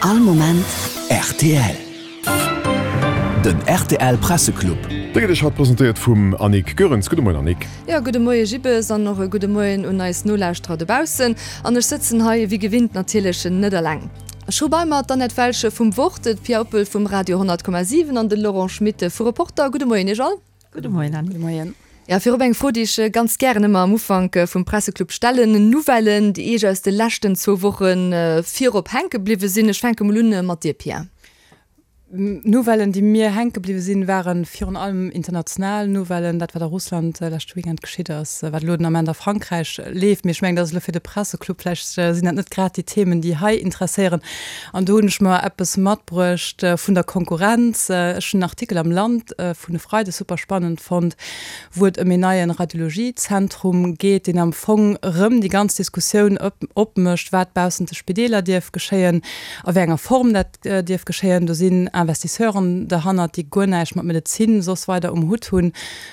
All Moment rtl. Den rtl Presseclub. Dee gëtt Iech haut presentéiert vum Annick Goerens. Gudde Moien Annick. Jo, gudde Moie Jibbes an och e gudde Moien un eis Nolauschterer dobaussen. An ech sëtzen hei wéi gewinnt natierlech net eleng. Ech hu bei mer d'Annette Welsch vum Wort, d'Pia Oppel vum Radio 100,7 an de Laurent Schmit vu Reporter. Gudde Moien Iech all. Gudde Moien Anne. Gudde Moien. Ja, virop eng Fro, déi ech ganz gären ëmmer am Ufank vum Presseclub stellen, Nouvellen, déi Iech aus de leschten zwou Woche virop hänke bliwwe sinn. Ech fänke mol un mat dir, Pia. Nouvellen, déi mir hänke bliwwe sinn, ware virun allem international Nouvellen, dat wat a Russland leschte Weekend geschitt ass, wat elo den Ament a Frankräich leeft. Mee ech mengen, dat ass elo fir de Presseclub, vläicht sinn dat net grad déi Themen, déi hei interesséieren. An do hunn ech mer eppes matbruecht vun der Konkurrenz. Ech hunn en Artikel am Land vun e Freide super spannend fonnt, wou et ëm een neie Radiologiezentrum geet, deen am Fong erëm déi ganz Diskussioun opmécht, wat baussent de Spideeler dierf geschéien, a wéi enger Form dat dierf geschéien. Do sinn Investisseuren derhannert, déi guer näischt mat Medezin soss weider um Hutt hunn.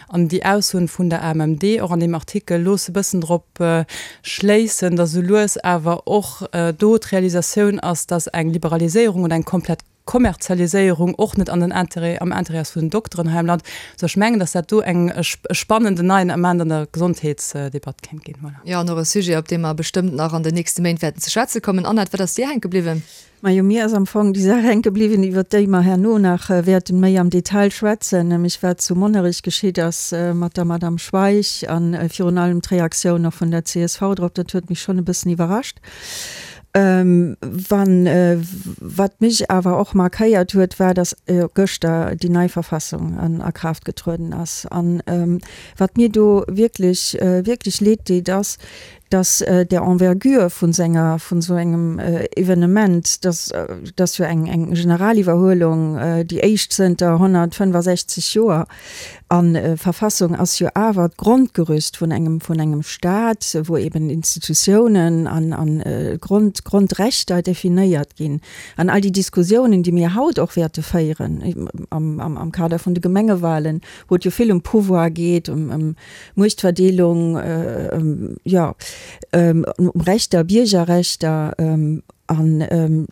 An déi Aussoen vun der AMMD, och an deem Artikel, loosse bëssen drop schléissen, datt esou lues awer och do d'Realisatioun ass, datt eng Liberaliséierung oder eng komplett Kommerzialiséierung och net an den Intérêt, am Intérêt ass vun den Dokteren hei am Land. Sou ech mengen, datt dat do eng, e spannenden neien Ament an der Gesondheetsdebatt kéint ginn. Voilà. Jo, an och e Sujet, op dee mer bestëmmt nach an den nächste Méint wäerten ze schwätze kommen. Annette, wat ass dir hänke bliwwen? Majo, mir ass am Fong déi Saach hänke bliwwen, iwwert déi mer herno nach wäerten méi am Detail schwätzen, nämlech wat zu Monnerech geschitt ass mat der Madame Schweich a virun allem d'Reaktioun och vun der csv drop. Dat huet mech schonn e bëssen iwwerrascht. Wann, wat mech awer och markéiert huet, war, dass gëschter déi nei Verfassung a Kraaft getrueden ass. An wat mir do wierklech, wierklech leed deet, ass, dass der Envergure vun senger, vun esou engem Evenement, dass dass jo eng eng Generaliwwerhuelung, déi éischt zënter 165 Joer, an Verfassung ass jo awer d'Grondgerüst vun engem vun engem Staat, wou eben Institutiounen an an Grond Grondrechter definéiert ginn. An all déi Diskussiounen, déi mir haut och wäerte féieren am am am Kader vun de Gemengewahlen, wou et jo vill ëm Pouvoir geet, ëm ëm Muechtverdeelung, jo, ëm Rechter, Biergerrechter, an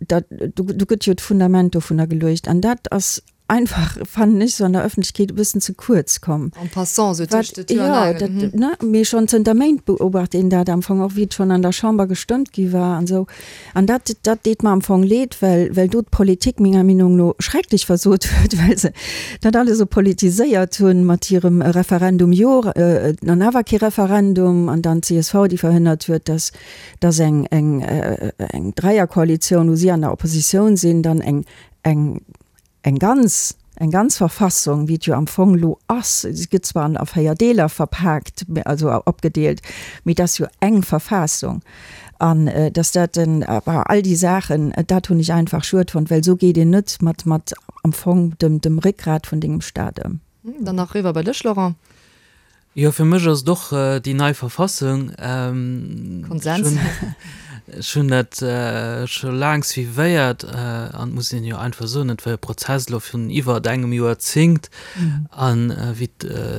dat, do gëtt jo d'Fundament dovunner geluecht. An dat ass einfach, fannen ech, esou an der Ëffentlechkeet e bëssen ze kuerz komm. En passant, esou tëscht de Tür an Aangel. Jo, dat, ne, mee schonn zënter Méint beobacht een dat am Fong, och wéi et schonn an der Chamber gestëmmt gi war an esou. An dat, dat deet mer am Fong leed, well, well do d'Politik menger Meenung no schrecklech versot huet, well se dat alles esou politiséiert hunn mat hirem Referendum jo, an awer kee Referendum, an dann d'CSV, déi verhënnert huet, dass, dass eng, eng, eng Dräierkoalitioun, wou si an der Oppositioun sinn, dann eng, eng, Eng ganz, eng ganz Verfassung, wéi et jo am Fong elo ass, si gëtt zwar an a 4 Deeler verpaakt, also opgedeelt, mee et ass jo eng Verfassung. An dass dat den, all déi Saachen, dat hunn ech einfach schued fonnt, well esou geet een net mat, mat am Fong dem, dem Réckgrat vun dengem Staat ëm. Dann nach eriwwer bei dech, Laurent. Jo, fir mech ass et och déi nei Verfassung. Konsens. Ech hunn dat scho laang suivéiert an et muss een jo einfach soen, et war e Prozess elo vun iwwert engem Joerzéngt. An wéi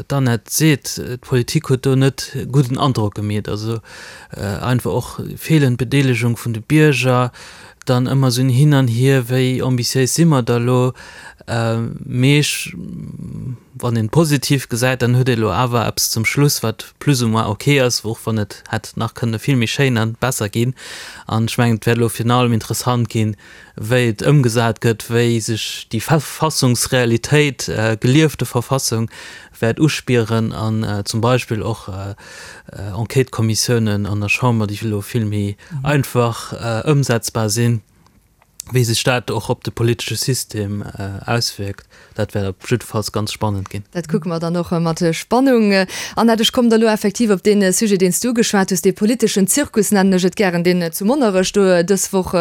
d'Annette seet, d'Politik huet do net gudden Androck gemeet. Also einfach och feelend Bedeelegung vun de Bierger, dann ëmmer esou en Hin an Hier, wéi ambitiéis si mer da elo? Mee ech, wann een et positiv gesäit, dann huet ee lo awer eppes zum Schluss, wat plus ou moins ok ass, och wann et hätt nach kënne vill méi schéin a besser ginn. An ech mengen, et wäert elo virun allem interessant ginn, wéi et ëmgesat gëtt, wéi sech déi Verfassungsrealitéit, geliefte Verfassung, wäert uspieren an zum Beispill och Enquêtëkommissiounen an der Chamber, déi elo vill méi einfach ëmsetzbar sinn, wéi sech dat och op de politesche System auswierkt, dat wäert op jiddefalls ganz spannend ginn. Dat kucke mer dann och mat Spannung. Annette, ech kommen da lo effektiv op dee Sujet, deen s du ugeschwat hues, dee politeschen Zirkus, nennen ech et gären, deen zu Monnerech do dës Woch,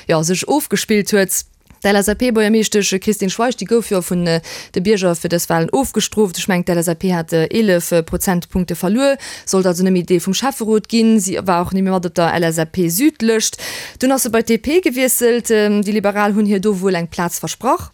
jo, sech ofgespillt huet. D'LSAP-Buergermeeschtesch Christine Schweich, déi gouf jo vun de Bierger fir dës Walen ofgestrooft. Ech mengen, d'LSAP hat 11 Prozentpunkte verluer, sollt also net méi Deel vum Schäfferot ginn. Si war och net méi mat op der LSAP-Süd-Lëscht. Dunn ass se bei d'DP gewiesselt. Déi Liberal hunn hir do wuel eng Plaz versprach.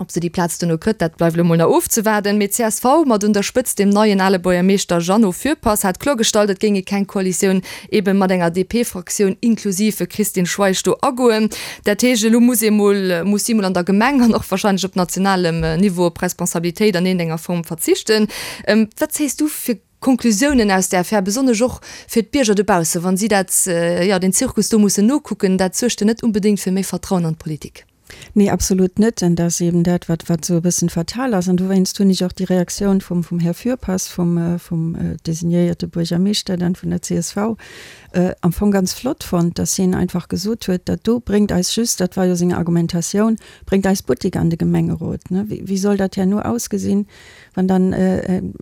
Ob se déi Plaz duerno kritt, dat bleift elo mol nach ofzewaarden. Mee csv, mat un der Spëtzt dem neien ale Buergermeeschter Jeannot Fürpass, hat kloergestallt, et géing ee keng Koalitioun ebe mat enger DP-Fraktioun inklusiv Christine Schweich do agoen. Dat heescht, elo muss ee mol, muss si mol an der Gemeng an och warscheinlech op nationalem Niveau op Responsabilitéit an iergendenger Form verzichten. Wat zéiss du fir Konklusiounen aus där Affär, besonnesch och fir d'Bierger dobaussen, wa si dat, jo, deen Zirkus do mussen nokucken? Dat suergt jo net unbedéngt fir méi Vertrauen an d'Politik. Nee, absolut net. An dat ass eben dat, wat, wat esou e bëssen fatal ass. An dowéinst hunn ech och déi Reaktioun vum, vum Här Fürpass, vum, vum designéierte Buergermeeschter dann vun der csv, am Fong ganz flott fonnt, dass hien einfach gesot huet, dat do bréngt eis just, dat war jo seng Argumentatioun, bréngt eis Buttek an de Gemengerot. Ne, wéi, wéi soll dat herno ausgesinn, wann dann een,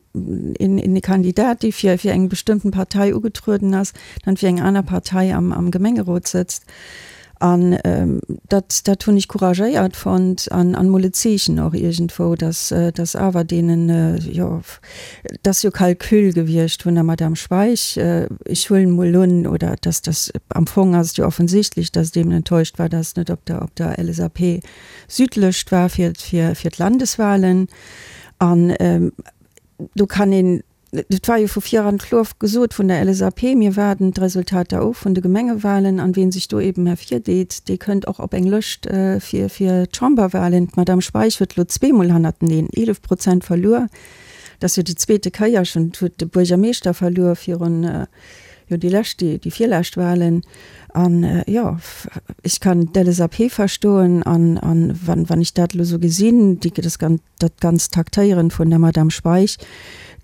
een Kandidat, dee fir, fir eng bestëmmten Partei ugetrueden ass, dann fir eng aner Partei am, am Gemengerot sëtzt? An dat, dat hunn ech couragéiert fonnt an, an mol e Zeechen och iergendwou, dass, dass awer deenen, jo, et ass jo Calcul gewiescht vun der Madame Schweich, ech huelen mol un, oder dass, dass, am Fong ass et jo offensichtlech, dass et eben enttäuscht war, dass et net op der, op der LSAP-Südlëscht war fir, fir, fir d'Landeswahlen. An do kann een, Et war jo vu viran kloer gesot vun der LSAP, mir waarden d'Resultater of vun de Gemengewahlen an wien sech do eben ervirdeet, dee kënnt och op eng Lëscht fir fir d'Chamberwahlen. D'Madame Schweich huet elo zweemol hannerteneen 11 Prozent verluer. Dat ass jo déi zweete Kéier schonn. Et huet de Buergermeeschter verluer virun, jo déi lescht, déi virlescht Wahlen. An jo, ech kann d'LSAP verstoen an wann wann ech dat elo esou gesinn, déi das ganz, Dat ganzt Taktéieren vun der Madame Schweich,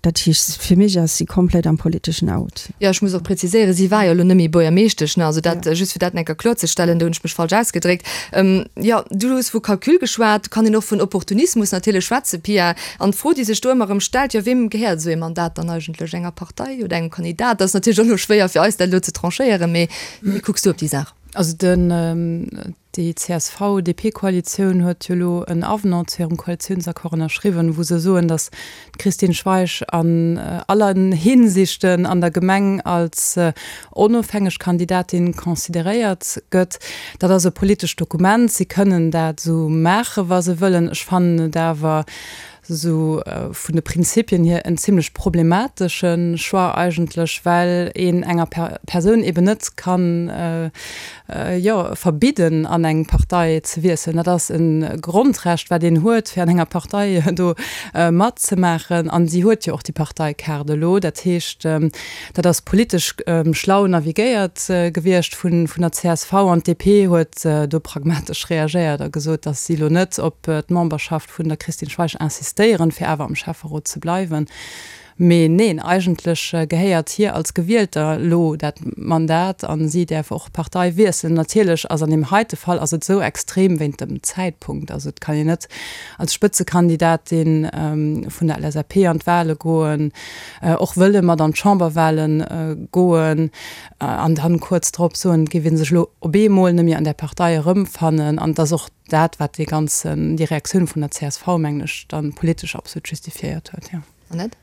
dat heescht, fir mech ass si komplett am politeschen Out. Jo, ech muss och präziséieren, si war jo elo net méi Buergermeeschtesch, ne? Also dat just fir dat eng Kéier kloerzestellen, do hunn ech mech falsch ausgedréckt. Jo, du hues vu Calcul geschwat, kann een och vun Opportunismus natierlech schwätzen, Pia. An d'Fro, déi sech do ëmmer erëm stellt, jo, weem gehéiert esou ee Mandat dann eigentlech? Enger Partei oder engem Kandidat? Dat ass natierlech och elo schwéier fir eis, dat elo ze tranchéieren, mee wéi kucks du op déi Saach? Also den, déi CSV-DP-Koalitioun huet jo elo en Avenant zu hirem Koalitiounsaccord ënnerschriwwen, wou se soen, datt d'Christine Schweich an allen Hinsichten an der Gemeng als onofhängeg Kandidatin consideréiert gëtt. Dat ass e politescht Dokument, si kënnen dat esou maachen, wa se wëllen. Ech fannen et awer esou vun de Prinzipien hier en zimlech problematesche Choix eigentlech, well een enger Persoun eben net kann, jo, verbidden an eng Partei ze wiesselen. Dat ass e Grondrecht wat een huet, fir an enger Partei do matzemaachen. An si huet jo och déi Parteikaart elo. Dat heescht, dat ass politesch schlau navigéiert gewiescht vun der csv an d'DP huet do pragmatesch reagéiert a gesot, datt si elo net op d'Memberschaft vun der Christine Schweich insistéieren, fir awer am Schäfferot ze bleiwen. Mee neen, eigentlech gehéiert hir als Gewielter lo dat Mandat a si däerf och d'Partei wiesselen. Natierlech ass an deem heite Fall ass et esou extrem wéint dem Zäitpunkt. Also et kann een net als Spëtzekandidatin vun der LSAP an d'Wale goen, och wëlle mat an d'Chamberwale goen an dann kuerz drop soen, et géif ee sech elo op eemol net méi an där Partei erëmfannen. An et ass och dat, wat dee ganzen, déi Reaktioun vun der csv, mengen ech, dann politesch absolut justifiéiert huet, jo. Annette?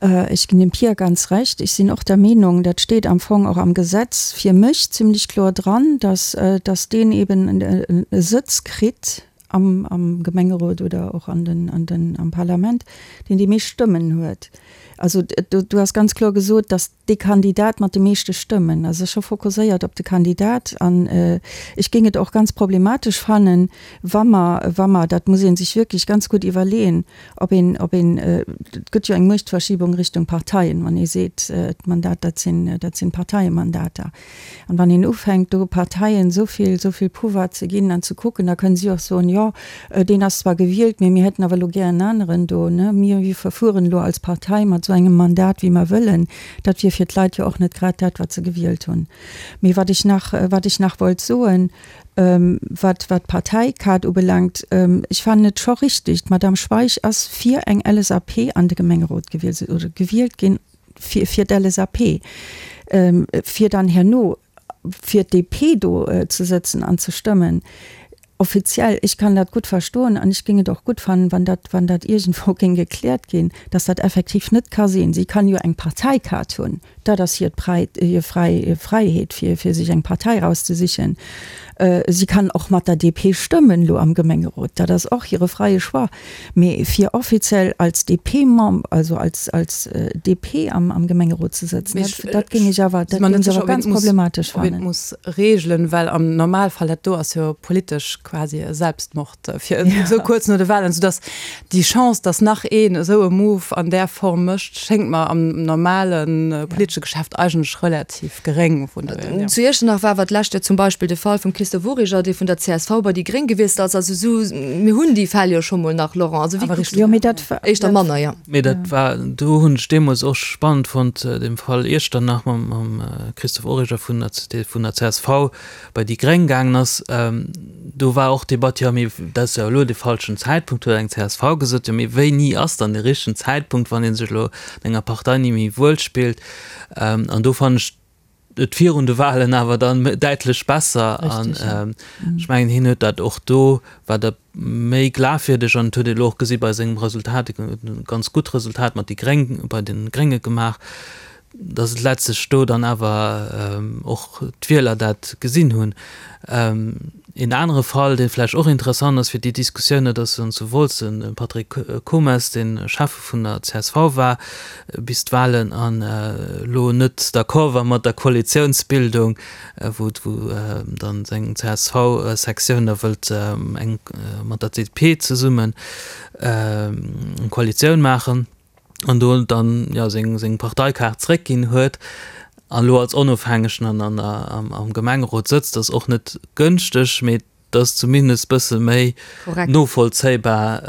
Ech ginn dem Pia ganz Recht. Ech sinn och der Meenung, dat steet am Fong och am Gesetz fir mech zimlech kloer dran, dass, dass deen eben e Sëtz kritt am, am Gemengerot oder och an den, an den, am Parlament, deen déi meescht Stëmmen huet. Also do, do ass ganz kloer gesot, dass dee Kandidat mat de meeschte Stëmmen, also scho fokusséiert op de Kandidat. An ech géing et och ganz problematesch fannen, wa mer, wa mer, dat muss ee sech wierklech ganz gutt iwwerleeën, ob een, ob een, et gëtt jo eng Muechtverschiebung Richtung Parteien, wann ee seet, d'Mandat, dat sinn, dat sinn Parteiemandater. An wann een ufänkt, do Parteien esou vill, esou vill Pouvoir ze ginn an ze kucken, da kënnen si och soen, jo, deen ass zwar gewielt, mee mir hätten awer elo gär en aneren do, ne, mir, mir verfueren elo als Partei mat esou engem Mandat, wéi mer wëllen. Dat wier fir d'Leit jo och net grad dat, wat se gewielt hunn. Mee wat ech nach, wat ech nach wollt soen, wat, wat d'Parteikaart ubelaangt, ech fannen et scho richtig, d'Madame Schweich ass fir eng LSAP an de Gemengerot gewielt, oder gewielt ginn, fir, fir d'LSAP, fir dann herno fir d'DP do ze sëtzen an ze stëmmen, offiziell, ech kann dat gutt verstoen an ech géing et och gutt fannen, wann dat, wann dat iergendwou géing gekläert ginn, dass dat effektiv net ka sinn. Si kann jo eng Parteikaart hunn, dat ass hiert Prei, hir fräi Fräiheet, fir, fir sech eng Partei erauszesichen. Si kann och mat der DP stëmmen elo am Gemengerot, dat ass och hire freie Choix. Mee fir offiziell als DP-Member, also als als DP am am Gemengerot ze sëtzen, dat dat géing ech awer, dat géing ech awer ganz problematesch fannen. Ob een et muss reegelen, well am Normalfall, dat do ass jo politesch quasi e Selbstmord fir esou kuerz no de Wahlen, soudass déi Chance, dass nach een esou e Move an där Form mécht, schéngt mer am normale politesche Geschäft eigentlech relativ geréng. Vun dohier, jo. Zu Iechternach war awer d'lescht Joer zum Beispill de Fall vum Christophe Origer, dee vun der csv bei déi Gréng gewiesselt ass. Also esou, mir hunn déi Fäll jo scho mol nach, Laurent. Also wéi kucks du dat? Éischter manner, jo. Mee dat war, do hunn ech deemools och spannend fonnt, de Fall Iechternach mam Christophe Origer vun der, dee vun der csv bei déi Gréng gaangen ass. Do war och d'Debatt, jo mee dat ass jo elo de falschen Zäitpunkt, huet eng csv gesot. Jo mee wéini ass dann de richtegen Zäitpunkt, wann ee sech elo an enger Partei ni méi wuel spillt? An do fannen ech et virun de Wahlen awer dann däitlech besser. An ech mengen, hien huet dat och do, war dat méi glafwierdeg an et huet ee elo och gesi bei sengem Resultat, e ganz gutt Resultat mat déi Gréng, bei de Grénge gemaach, datt et letztlech do dann awer och d'Wieler dat gesinn hunn. Een anere Fall, dee vläicht och interessant ass fir déi Diskussioun, dat ass dann zu Wolz de Patrick Comes, dee Schäffe vun der csv war bis d'Wahlen an elo net d'accord war mat der Koalitiounsbildung, wou dann seng CSV-Sektioun da wëllt eng mat der DP zesummen eng Koalitioun maachen. An do dann jo seng seng Parteikaart zréckginn huet an elo als Onofhängegen an an der am Gemengerot sëtzt, ass och net gënschteg, mee et ass zumindest bësse méi novollzéibar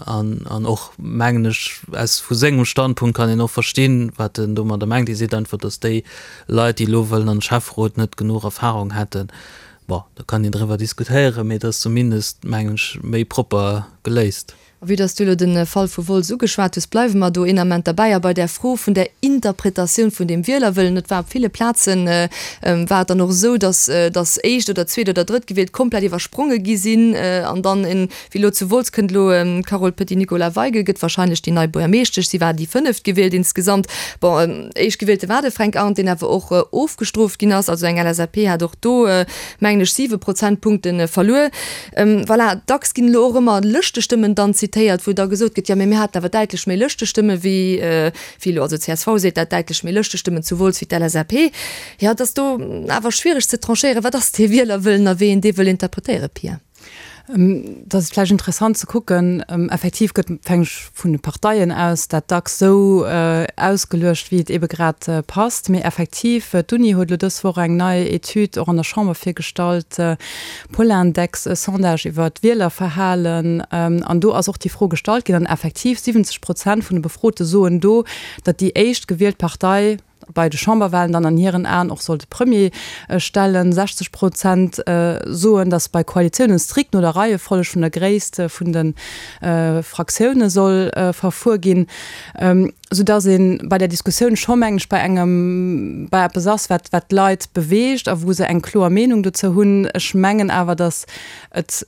an an och mengen ech aus vu sengem Standpunkt kann een och verstinn, wat en domadder mengt. Hie seet einfach, datt déi Leit, déi elo wëllen an de Schäfferot, net genuch Erfahrung hätten. Bon, do kann een driwwer diskutéieren, mee et ass zumindest mengen ech méi propper geléist. A vue dass du elo de Fall vu Wolz ugeschwat hues, bleiwe mer do een Ament derbäi a bei där Fro vun der Interpretatioun vun deem Wielerwëllen. Et war op ville Plaze war et dann och esou, dass dass éischt oder zweet oder drëttgewielt komplett iwwerspronge gi sinn an dann en, wéi elo zu Wolz kënnt elo d'Carole Petit-Nicolas-Weigel gëtt wahrscheinlech déi nei Buergermeeschtesch, si war déi fënneftgewielt insgesamt. Bon, éischtgewielte war de Fränk Arndt, deen awer och ofgestrooft ginn ass. Also eng LSAP hat och do, mengen ech, siwe Prozentpunkte verluer. Voilà, dacks ginn elo och ëmmer Lëschtestëmmen dann zitéiert, wou da gesot gëtt, jo mee mir haten awer däitlech méi Lëschtestëmme wéi wéi elo, also csv seet dat, däitlech méi Lëschtestëmmen zu Wolz wéi d'LSAP. Jo, et ass do awer schwiereg ze tranchéieren, wat ass dee Wielerwëllen a wéi een dee wëll interpretéieren, Pia? Et ass vläicht interessant ze kucken, effektiv gëtt, fänk ech vun de Parteien aus, dat dacks esou ausgeluecht, wéi et eebe grad passt. Mee effektiv, d'Uni huet elo dës Woch eng nei Etüd och an der Chamber virgestallt, Polindex, e Sondage iwwer d'Wielerverhalen, an do ass och déi Fro gestallt ginn, an effektiv 70 Prozent vun de Befrote soen do, datt déi éischt gewielt Partei bei de Chamberwahlen dann an hiren Aen och soll de Premier stellen. 60 Prozent soen, datt bei Koalitiounen strikt no der Reiefolleg vun der Gréisst vun de Fraktioune soll verfuer ginn. Soudass ee bei där Diskussioun scho, mengen ech, bei engem, bei eppes ass, wat, wat d'Leit beweegt a wou se eng kloer Meenung dozou hunn. Ech mengen awer, datt et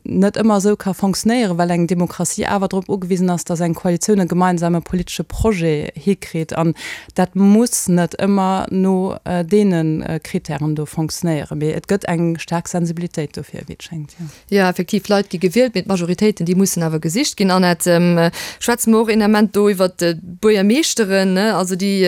net ëmmer esou ka fonctionnéieren, well eng Demokratie awer drop ugewisen ass, datt eng Koalitioun e gemeinsame politesche Projet hikritt. An dat muss net ëmmer no deene Kritären do fonctionnéieren. Mee et gëtt eng staark Sensibilitéit dofir, wéi et schéngt, jo. Jo, effektiv, Leit gi gewielt, mee d'Majoritéiten, déi mussen awer gesicht ginn. Annette, schwätze mer och een Ament do iwwert d'Buergermeeschteren, ne, also déi,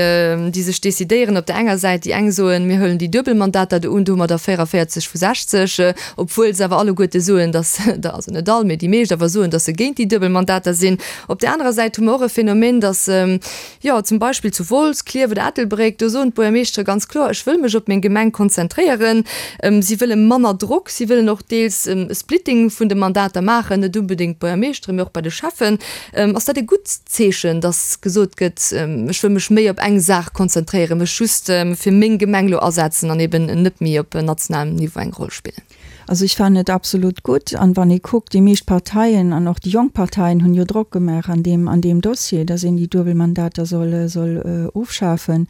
déi sech decidéieren op der enger Säit, déi eng soen, mir huelen déi Duebelmandater do un, do hu mer der 44 vu 60, obwuel se awer alleguerte soen, dass, also net all, mee déi meescht awer soen, dass se géint déi Duebelmandater sinn. Op där anerer Säit hu mer och e Phänomen, dass, Jo, zum Beispill zu Wolz, Klierf oder Ettelbréck, do soen d'Buergermeeschtere ganz kloer, ech wëll mech op meng Gemeng konzentréieren. Si wëlle manner Drock, si wëllen och deels e Splitting vun de Mandater maachen, net unbedéngt d'Buergermeeschtere, mee och bei de Schäffen. Ass dat e gutt Zeechen, datt gesot gëtt, ech wëll mech méi op eng Saach konzentréieren, mech just fir meng Gemeng elo asetzen an eben net méi op nationalem Niveau eng Roll spillen? Also ech fannen et absolut gutt. An wann ee kuckt, déi meescht Parteien an och déi jonk Parteien hunn jo Drock gemaach an deem, an deem Dossier, datt een déi duebel Mandater soll, soll ofschafen.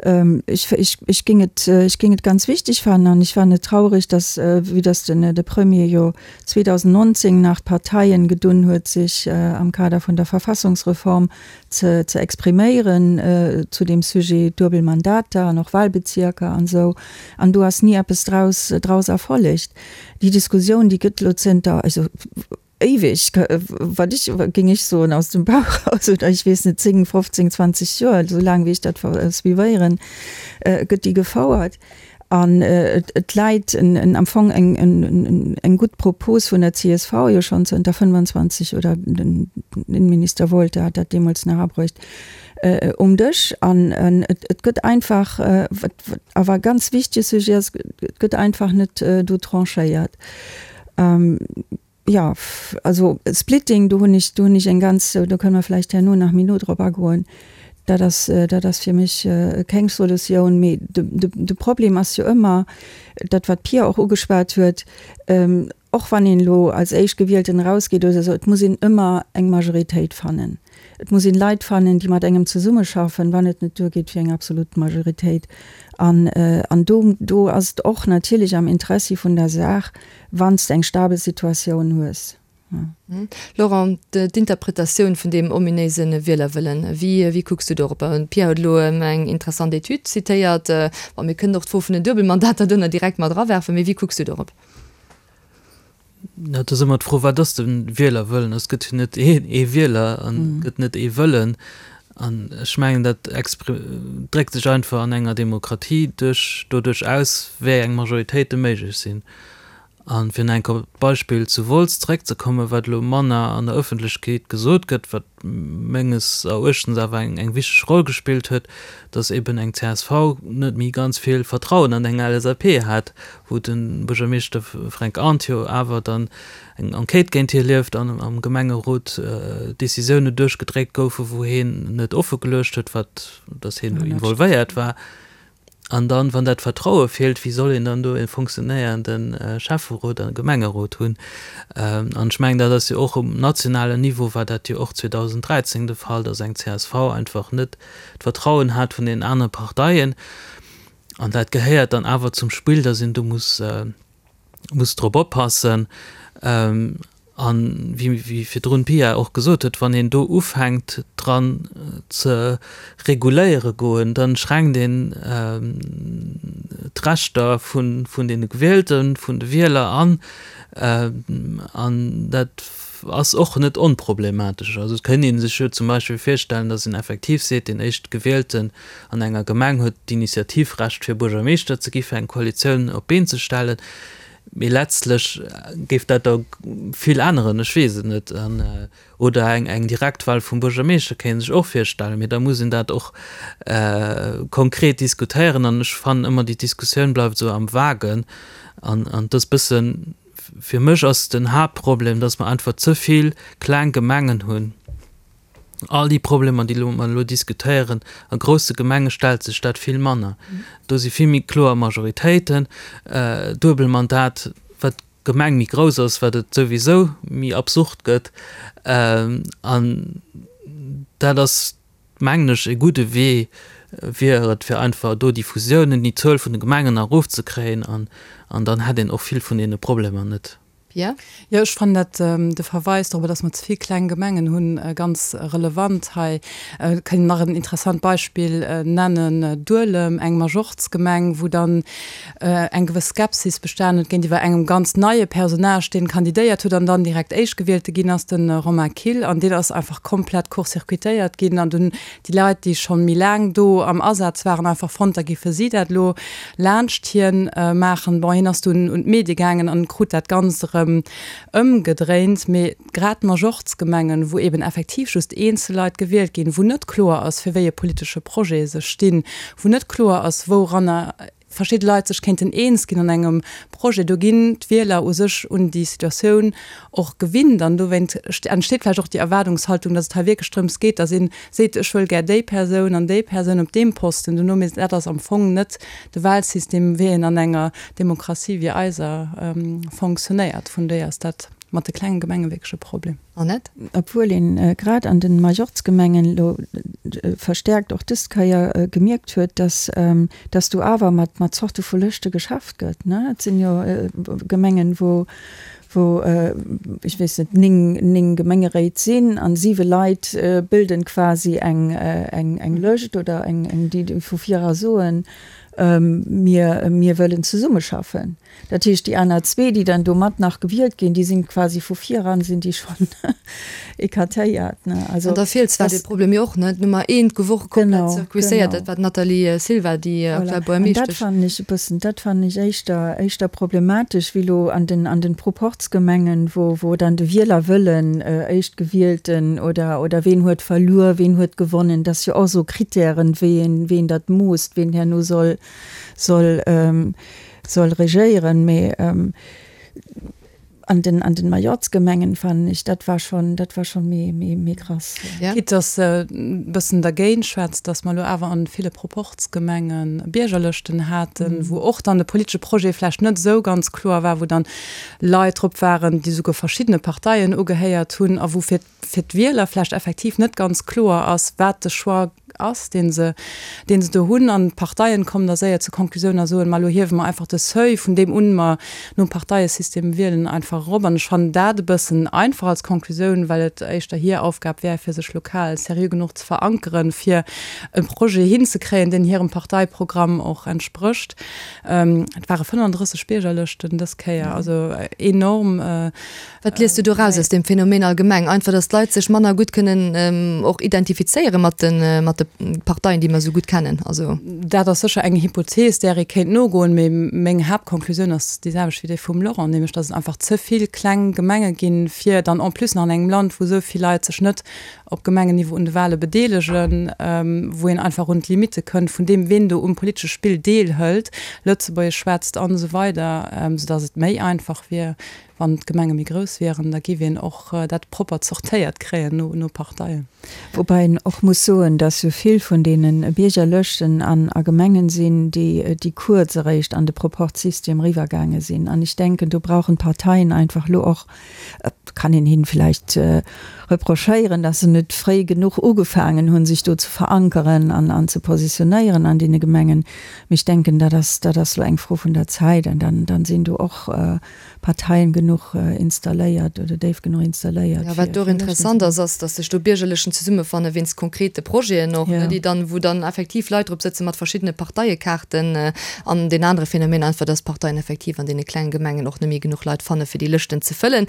Ech, ech, ech géing et, ech géing et ganz wichteg fannen an ech fannen et traurig, datt, vue datt den, de Premier jo 2019 nach d'Parteien gedunn huet, sech am Kader vun der Verfassungsreform ze, ze expriméieren zu deem Sujet duebel Mandater an och Wahlbezierker an esou, an do ass ni eppes draus, draus erfollegt. Déi Diskussioun, déi gëtt elo zënter, also éiweg, wat ech, géing ech soen, aus dem Bauch eraus, oder ech weess net, 10, 15, 20 Joer, esou laang wéi ech dat suivéieren, gëtt déi gefouert. An et läit am Fong eng gutt Propos vun der csv jo schonn zënter 25, oder den Innenminister Wolter hat dat deemools nach abruecht, um Dësch. An et gëtt einfach, wat awer e ganz wichtege Sujet ass, et gëtt einfach net do tranchéiert. Jo, also Splitting, do hunn ech, do hunn ech eng ganz, do kënne mer vläicht herno nach méi no drop agoen, dat ass, dat ass fir mech keng Solutioun. Mee de, de, de Problem ass jo ëmmer dat, wat d'Pia och ugeschwat huet, och wann een elo als Éischtgewielten erausgeet oder esou, et muss een ëmmer eng Majoritéit fannen. Et muss een Leit fannen, déi mat engem zesummeschaffen, wann et net duergeet fir eng absolut Majoritéit. An, an do, do ass et och natierlech am Interessi vun der Saach, wann s de eng stabel Situatioun hues. Laurent, d'Interpretatioun vun deem ominéise Wielerwëllen, wéi, wéi kucks du dorop? D'Pia huet elo eng interessant Etüd zitéiert. Bon, mir kënnen och d'Fro vun den Duebelmandater do nach direkt mat erawerfen, mee wéi kucks du dorop? Jo, et ass ëmmer d'Fro, wat ass de Wielerwëllen? Et gëtt jo net een ee Wieler an et gëtt net ee Wëllen. An ech mengen, dat dréckt sech einfach an enger Demokratie duerch, doduerch aus, wéi eng Majoritéite méiglech sinn. A fir nach eng Kéier op d'Beispill zu Wolz zeréckzekommen, wat elo manner an der Ëffentlechkeet gesot gëtt, wat menges Eruechtens awer eng wichteg Roll gespillt huet, datt eben eng csv net méi ganz vill Vertrauen an eng LSAP hat, wou de Buergermeeschter Fränk Arndt jo awer dann eng Enquête géint hie lieft an am Gemengerot Decisioune duerchgedréckt goufen, wou hien net offe geluecht huet, wat, datt hien do involvéiert war. An dann, wann dat Vertraue feelt, wéi soll een dann do e funktionéierende Schäfferot a Gemengerot hunn? An ech mengen, dat ass jo och um nationalen Niveau war dat jo och 2013 de Fall, datt eng csv einfach net d'Vertrauen hat vun den anere Parteien. An dat gehéiert dann awer zum Spill, datt een do muss, muss drop oppassen. An wéi virdrun d'Pia och gesot huet, wann een do ufänkt dran ze reguléiere goen, da schränkt een d'Rechter vun deene Gewielten, vun de Wieler an. An dat ass och net onproblematesch. Also et kéint ee sech jo zum Beispill virstellen, datt een effektiv seet, deen Éischtgewielten an enger Gemeng huet d'Initiativrecht fir Buergermeeschter ze gi fir eng Koalitioun op d'Been ze stellen, mee letztlech géif dat da vill änneren, ech weess et net. Oder eng Direktwahl vum Buergermeeschter kéint een sech och virstellen, mee da muss een dat och konkret diskutéieren an ech fannen ëmmer déi Diskussioun bleift esou am Vagen an et ass bëssen, fir mech ass den Haaptproblem, datt mer einfach ze vill kleng Gemengen hunn. All déi Problemer, déi mer elo diskutéieren, a grousse Gemenge stellt sech dat vill manner. Do si vill méi kloer Majoritéiten. Duebelmandat, wat d'Gemeng méi grouss ass, wat et souwisou méi absurd gëtt. An dat ass, mengen ech, e gudde Wee wier et, fir einfach do déi Fusiounen, déi Zuel vun de Gemengen erofzekréien an dann hätt een och vill vun deene Problemer net. Pia? Jo, ech fannen dat, de Verweis dorobber, dass mer ze vill kleng Gemengen hunn, ganz relevant hei. Et kann een nach en interessant Beispill nennen, Duelem, eng Majortsgemeng, wou dann eng gewëss Skepsis bestanen huet géintiwwer engem ganz neie Personnage, deen kandidéiert huet an dann direkt Éischtgewielte ginn ass, de Romain Kill. An deen ass einfach komplett court-circuitéiert ginn an dunn déi Leit, déi schonn méi laang do am Asaz waren, einfach fonnt, da géife si dat elo laanscht hien maachen. Bon, hien ass dunn un d'Medie gaangen an krut dat Ganzt erëm ëmgedréint. Mee grad d'Majortsgemengen, wou eben effektiv just eenzel Leit gewielt ginn, wou net kloer ass, fir wéi e politesche Projet se stinn, wou net kloer ass, wouranner. verschidde Leit sech kéinten eens ginn an engem Projet. Do ginn d'Wieler u sech un déi Situatioun och gewinnt an dowéint entsteet vläicht och déi Erwaardungshaltung, datt et hei wierklech drëms geet, datt ee seet, ech wëll gär déi Persoun an déi Persoun op deem Posten dono. Mee dat ass am Fong net de Wahlsystem, wéi en an enger Demokratie wéi eiser fonctionnéiert. Vun dohier ass dat mat de klenge Gemenge wierklech e Problem. Annette? Obwuel een grad an den Majorzgemengen elo verstärkt och dës Keier gemierkt huet, dass dass do awer mat mat Zorte vu Lëschte geschafft gëtt, ne. Et sinn jo Gemengen, wou wou ech weess net, 9, 9 Gemengeréit sinn an siwe Leit bilden quasi eng eng eng Lëscht oder eng eng déi vu vir era soen, mir mir wëllen zesummeschaffen. Dat heescht, déi aner zwee, déi dann do mat nach gewielt ginn, déi sinn quasi vu viran sinn déi schonn écartéiert, ne. Also An da feelt zwar dee Problem jo och, ne, d'Nummer eent gouf och komplett zirkuiséiert, dat war d'Nathalie Silva, déi aktuell Buergermeeschtesch. An dat fannen ech e bëssen, dat fannen ech éischter, éischter problematesch wéi elo an den, an den Proporzgemengen, wou, wou dann de Wielerwëllen, Éischtgewielten oder, oder ween huet verluer, ween huet gewonnen, dat ass jo och esou Kritären, wéi een, wéi een dat moosst, ween herno soll, soll, soll regéieren, mee an den, an den Majorzgemengen fannen ech, dat war schon, dat war schon méi, méi, méi krass. Quitte dass e bëssen dergéint schwätzt, dass mer elo awer an ville Proporzgemenge Biergerlëschten haten, wou och dann de politesche Projet vläicht net esou ganz kloer war, wou dann Leit drop waren, déi souguer verschiddene Parteien ugehéiert hunn a wou fir fir d'Wieler vläicht effektiv net ganz kloer ass, wat de Choix ass, dee se, dee se do hunn. An d'Parteien kommen da séier zur Konklusioun a soen, ma elo hiewe mer einfach de Seuil, vun deem un mer nom Parteiesystem wielen, einfach erop. An ech fannen dat e bëssen einfach als Konklusioun, well et éischter hir Aufgab wär, fir sech lokal seriö genuch ze verankeren, fir e Projet hinzekréien, deen hirem Parteiprogramm och entsprécht. Et ware 35 Biergerlëschten dës Kéier, also enorm. Wat liest du do raus aus deem Phänomen allgemeng? Einfach, datt d'Leit sech manner gutt kënnen och identifizéiere mat de, mat de Parteien, déi mer esou gutt kennen? Also. Dat ass sécher eng Hypothees, där ee kéint nogoen, mee meng Haaptkonklusioun ass déi selwecht wéi déi vum Laurent, nämlech datt et einfach ze vill kleng Gemenge ginn, fir dann en plus nach an engem Land, wou esou vill Leit sech net op Gemengenniveau un de Wahle bedeelegen, wou een einfach un d'Limitte kënnt vun deem, ween do um politesche Spill deelhëlt, Lëtzebuergesch schwätzt an esou weider, soudatt et méi einfach wier, Wann d'Gemenge méi grouss wieren, da giff een och dat propper zortéiert kréien no Parteien. Woubäi een och muss soen, dass jo vill vun deene Biergerlëschten an a Gemengen sinn, déi déi kuerz eréischt an de Proporzsystem eriwwergaange sinn. An ech denken, do brauchen d'Parteien einfach elo och, et kann een hinnen vläicht reprochéieren, dass se net fréi genuch ugefaangen hunn, sech do ze verankeren an an ze positionéieren an deene Gemengen. Mee ech denken, dat ass dat ass elo eng Fro vun der Zäit an dann dann sinn do och Parteien genuch installéiert oder déif genuch installéiert. Jo, wat do och interessant ass, ass, datt sech do Biergerlechen zesummefanne wéinst konkrete Projeten och, ne, déi dann, wou dann effektiv Leit drop sëtze mat verschiddene Parteiekaarten. An deen anere Phänomen einfach, datt d'Parteien effektiv an deene klengen Gemengen och net méi genuch Leit fanne fir déi Lëschten ze fëllen.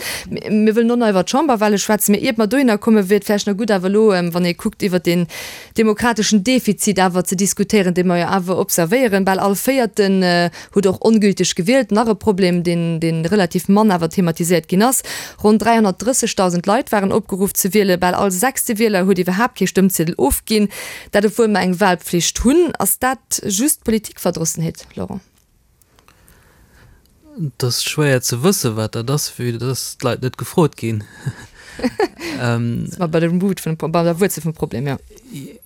Mir wëllen och nach iwwer d'Chamberwahle schwätzen, mee iert mer dohinner kommen, wier et vläicht nach gutt awer elo, wann ee kuckt iwwert deen demokrateschen Defizit awer ze diskutéieren, dee mer jo awer observéieren. Bal all Véierten huet och ongülteg gewielt. Nach e Problem, deen, dee relativ mann awer thematiséiert ginn ass, Ronn 330.000 Leit waren opgeruff ze wielen. Bal all sechste Wieler huet iwwerhaapt kee Stëmmziedel ofginn. Dat obwuel mer eng Wahlpflicht hunn. Ass dat just Politikverdrossenheet, Laurent? Et ass schwéier ze wëssen, wat dat ass, vue dass d'Leit net gefrot ginn. Si mer bei der Root vun, bei der Wuerzel vum Problem, jo.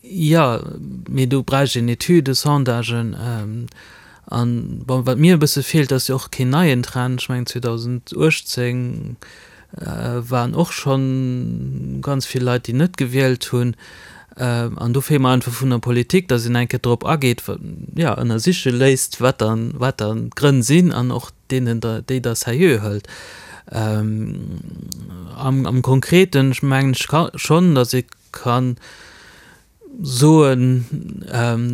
Jo, mee do bräicht een Etüden, Sondagen. An, bon, wat mir e bësse feelt, ass jo och keen neien Trend. Ech mengen 2018 waren och schonn ganz vill Leit, déi net gewielt hunn. An do feelt mer einfach vun der Politik, datt een eng Kéier drop ageet, jo, ënnersiche léisst, wat dann, wat dann d'Grënn sinn an och deenen da, déi da seriö hëlt. Am, am Konkreten, ech mengen ech ka schonn, datt ee kann soen,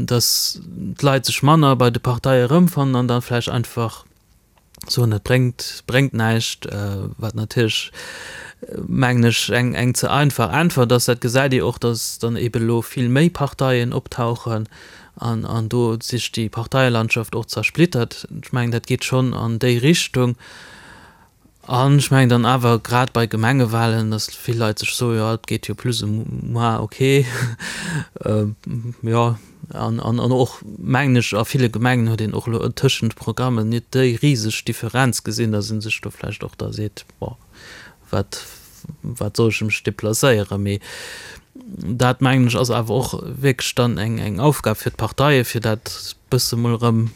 datt d'Leit sech manner bei de Parteie erëmfannen an da vläicht einfach soen, et bréngt, bréngt näischt, wat natierlech, mengen ech, eng, eng ze einfach Äntwert ass. Dat gesäit ee och, datt dann eebe elo vill méi Parteien optauchen an, an do sech déi Parteielandschaft och zersplittert. Ech mengen, dat geet schonn an déi Richtung. An ech mengen dann awer grad bei Gemengewahlen, datt vill Leit sech soen, jo, et geet jo plus ou moins ok, jo. An, an, an och, mengen ech, a ville Gemengen huet een och elo tëschent Programmen net déi riseg Differenz gesinn, datt ee sech do vläicht och da seet, bon, wat, wat soll ech mech deplacéieren. Mee dat, mengen ech, ass awer och wierklech dann eng, eng Aufgab fir d'Parteien, fir dat bësse mol erëm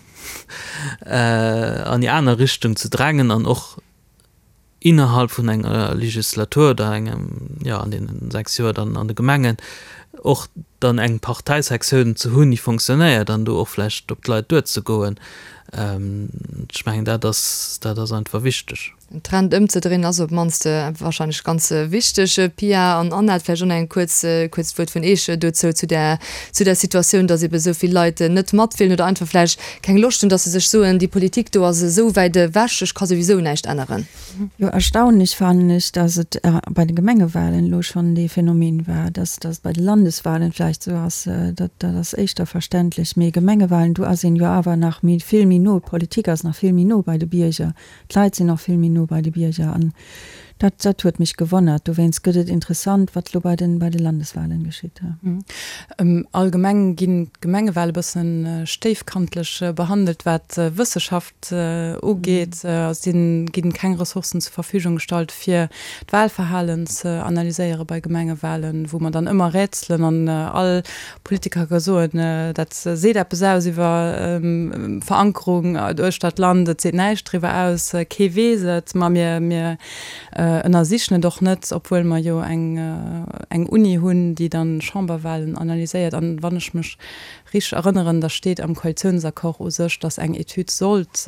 an déi aner Richtung ze drängen an och innerhalb vun enger Legislatur oder engem, jo an deenen 6 Joer dann an de Gemengen och dann eng Parteisektioun ze hunn, déi fonctionnéiert an do och vläicht op d'Leit duerzegoen. Ech mengen dat ass, dat ass einfach wichteg. Den Trend ëmzedréinen ass op d'mannst wahrscheinlech ganz wichteg. Pia an Annette, vläicht och nach eng kuerz, kuerzt Wuert vun Eech dozou, zu där, zu där Situatioun, datt ebe esou vill Leit net matwielen oder einfach vläicht keng Loscht hunn, datt se sech soen, déi Politik do ass esou wäit ewech, ech ka souwisou näischt änneren. Jo, erstaunlech fannen ech, datt et bei de Gemengewahlen elo schonn dee Phänomen war. Datt et bei de Landeswahlen vläicht esou ass, dat ass éischter verständlech. Mee Gemengewahlen, do ass een jo awer nach méi, vill méi no, d'Politik ass nach vill méi no bei de Bierger, d'Leit sinn och vill méi no bei de Bierger. An dat, dat huet mech gewonnert. Dowéinst gëtt et interessant, wat elo bei de, bei de Landeswahlen geschitt. Allgemeng ginn d'Gemengewale bësse stéifkantlech behandelt, wat d'Wësseschaft ugeet. Et ginn keng Ressourcen zur Verfügung gestallt, fir d'Wahlverhalen ze analyséiere bei Gemengewalen, wou mer dann ëmmer rätselen an all Politiker ka soen, dat seet eppes aus iwwer Verankerung uechter d'Land, et seet näischt driwwer aus, kee weess et, ma mir, mir ënnersichen et och net, obwuel mer jo eng, eng Uni hunn, déi dann Chamberwahlen analyséiert. An wann ech mech richteg erënneren, da steet am Koalitiounsaccord u sech, datt eng Etüd sollt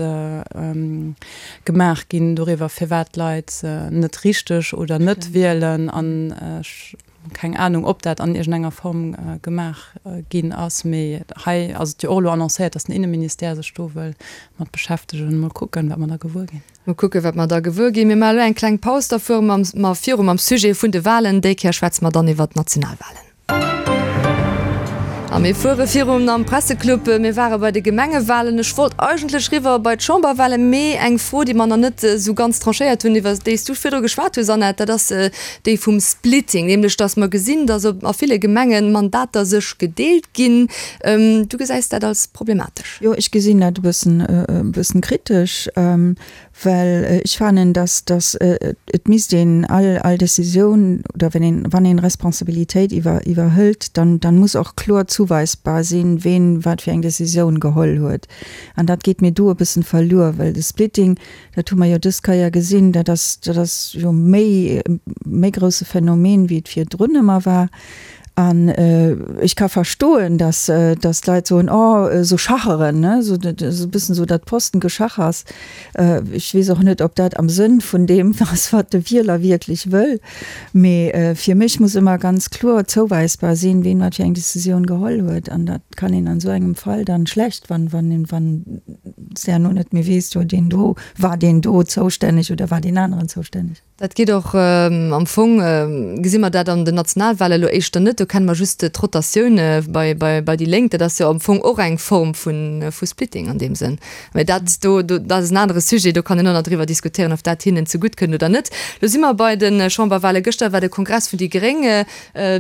gemaach ginn doriwwer, firwat d'Leit net richteg oder net wielen. An ech Keng Anung, ob dat an iergendenger Form gemaach ginn ass, mee hei ass et jo och elo annoncéiert, datt den Inneministère sech do wëll mat beschäftegen. Mol kucken, wat mer da gewuer ginn. Mol kucken, wat mer da gewuer ginn. Mir maache elo eng kleng Paus, da fuere mer viru mam Sujet vun de Walen. Déi Kéier schwätze mer dann iwwert d'Nationalwalen. A mir fuere virun am Presseclub. Mir ware bei de Gemengewalen. Ech wollt eigentlech riwwer bei d'Chamberwalen, mee eng Fro, déi mer nach net esou ganz tranchéiert hunn, iwwer déi s du virdru geschwat hues, Annette, dat ass déi vum Splitting, nämlech datt mer gesinn, datt op a ville Gemengen Mandater sech gedeelt ginn. Du gesäis dat als problematesch? Jo, ech gesinn dat e bëssen, e bëssen kritesch. Well ech fannen, dass, dass et misst een all, all Décisioun oder wenn een, wann een Responsabilitéit iwwer, iwwerhëlt, dann, dann muss och kloer zuweisbar sinn, ween wat fir eng Décisioun geholl huet. An dat geet mir do e bëssen verluer, well de Splitting, dat hu mer jo dës Kéier gesinn, dat ass, dat ass jo méi, méi grousse Phänomen, wéi et virdrun ëmmer war. An ech ka verstoen, dass, dass d'Leit soen, oh, esou schacheren, ne, esou e bëssen esou dat Postengeschachers. Ech weess och net, ob dat am Sënn vun deem ass, wat de Wieler wierklech wëll. Mee fir mech muss ëmmer ganz kloer zouweisbar sinn, ween wat fir eng Decisioun geholl huet. An dat kann een an esou engem Fall dann schlecht, wann, wann, wann s de herno net méi weess, jo deen do, war deen do zoustänneg oder war deen aneren zoustänneg. Dat geet och am Fong, gesi mer dat an den Nationalwahlen elo éischter net. Do kenne mer just d'Rotatioun bei, bei, bei déi Lénk. Dat ass jo am Fong och eng Form vu, vu Splitting an deem Sënn. Mä dat do, do, dat ass en anere Sujet, do kann een och nach driwwer diskutéieren, ob dat hinnen zegutt kënnt oder net. Elo si mer bei de Chamberwahlen. Gëschter war de Kongress vun déi Gréng.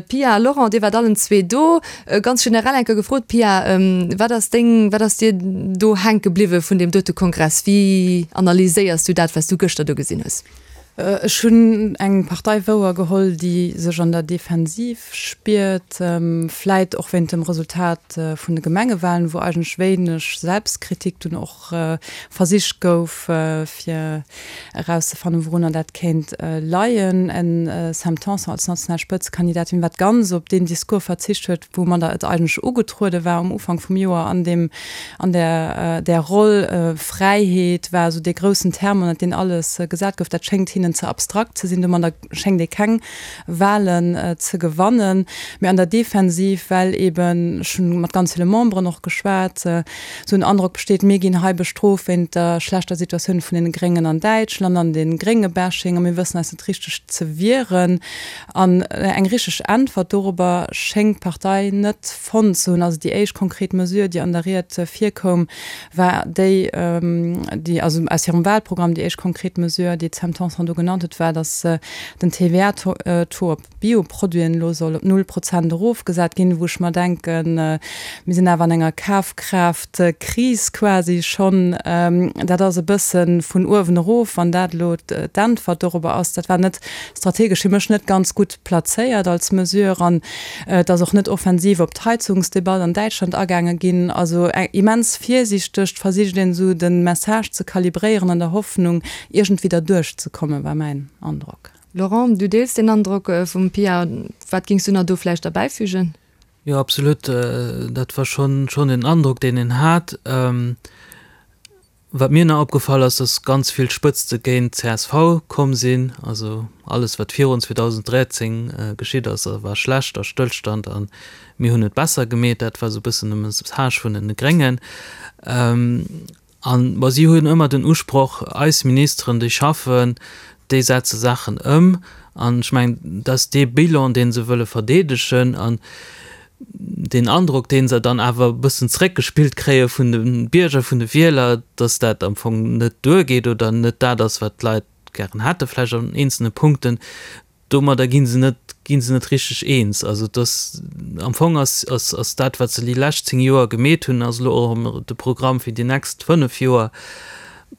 Pia a Laurent, Dir waart allen zwee do. Ganz generell eng Kéier gefrot, Pia, wat ass deng, wat ass dir do hänke bliwwe vun deem dote Kongress? Wéi analyséiers du dat, wat s du gëschter do gesinn hues? Ech hunn eng Partei wouer geholl, déi sech an der Defensiv spiert, vläit och wéint dem Resultat vun de Gemengewahlen, wou eigentlech wéineg Selbstkritik dunn och versicht gouf, fir erauszefannen, wourunner dat kéint leien. En Sam Tanson als national Spëtzekandidatin, wat ganz op deen Discours verzicht huet, woumadder et eigentlech ugetruede war um Ufank vum Joer an deem, an där, där Roll. Fräiheet war esou dee groussen Terme, ënnert deen alles gesat gouf. Dat schéngt hinnen ze abstrakt ze sinn. Domadder schéngt ee keng Wahlen ze gewannen. Mee an der Defensiv, well eben, ech hunn mat ganz ville Memberen och geschwat, esou en Androck besteet, mir ginn hei bestrooft wéint der schlechter Situatioun vun den Gréngen an Däitschland an de Grénge-Bashing a mir wëssen eis net richteg ze wieren. An eng richteg Äntwert dorobber schéngt d'Partei net fonnt ze hunn. Also déi éischt konkret Mesure, déi an der Ried virkoum, war déi, déi, also aus hirem Wahlprogramm, déi éischt konkret Mesure, déi d'Sam Tanson do. elo genannt huet, war, datt den TVA-Taux op Bioproduiten elo soll op null Prozent erofgesat ginn, wou ech mer denken, mir sinn awer an enger Kafkraaft-Kris quasi schonn. Dat ass e bësse vun uewen erof, wann dat elo d'Äntwert dorobber ass. Dat war net strategesch fir mech net ganz gutt plazéiert als Mesure an et ass och net offensiv op d'Heizungsdebatt an Däitschland agaange ginn. Also immens virsiichteg versicht een esou de Message ze kalibréieren an der Hoffnung iergendwéi derduerch ze kommen, war mäin Androck. Laurent, du deels deen Androck vum Pia. Wat géings du nach do vläicht derbäifügen? Jo, absolut. Dat war schonn schonn den Androck, deen een hat. Wat mir nach opgefall ass, dass ganz vill Spëtzte géint csv komm sinn. Also alles, wat virun 2013 geschitt ass, war schlecht a Stëllstand a mir hunn et besser gemeet. Dat war esou e bëssen de Message vun den Gréngen. An, bon, si hunn ëmmer den Usproch, eis Ministeren, déi schaffen, déi setze Saachen ëm. An ech mengen, dat ass dee Bilan, dee se wëlle verdeedegen an deen Androck, dee se dann awer e bëssen zréckgespillt kréie vun de Bierger, vun de Wieler, datt dat am Fong net duergeet oder net dat ass, wat d'Leit gären hätte vläicht an eenzelne Punkten. Domadder gi se net, gi se net richteg eens. Also et ass, am Fong ass, ass, ass dat, wat se déi lescht 10 Joer gemeet hunn, ass elo och de Programm fir déi nächst 5 Joer.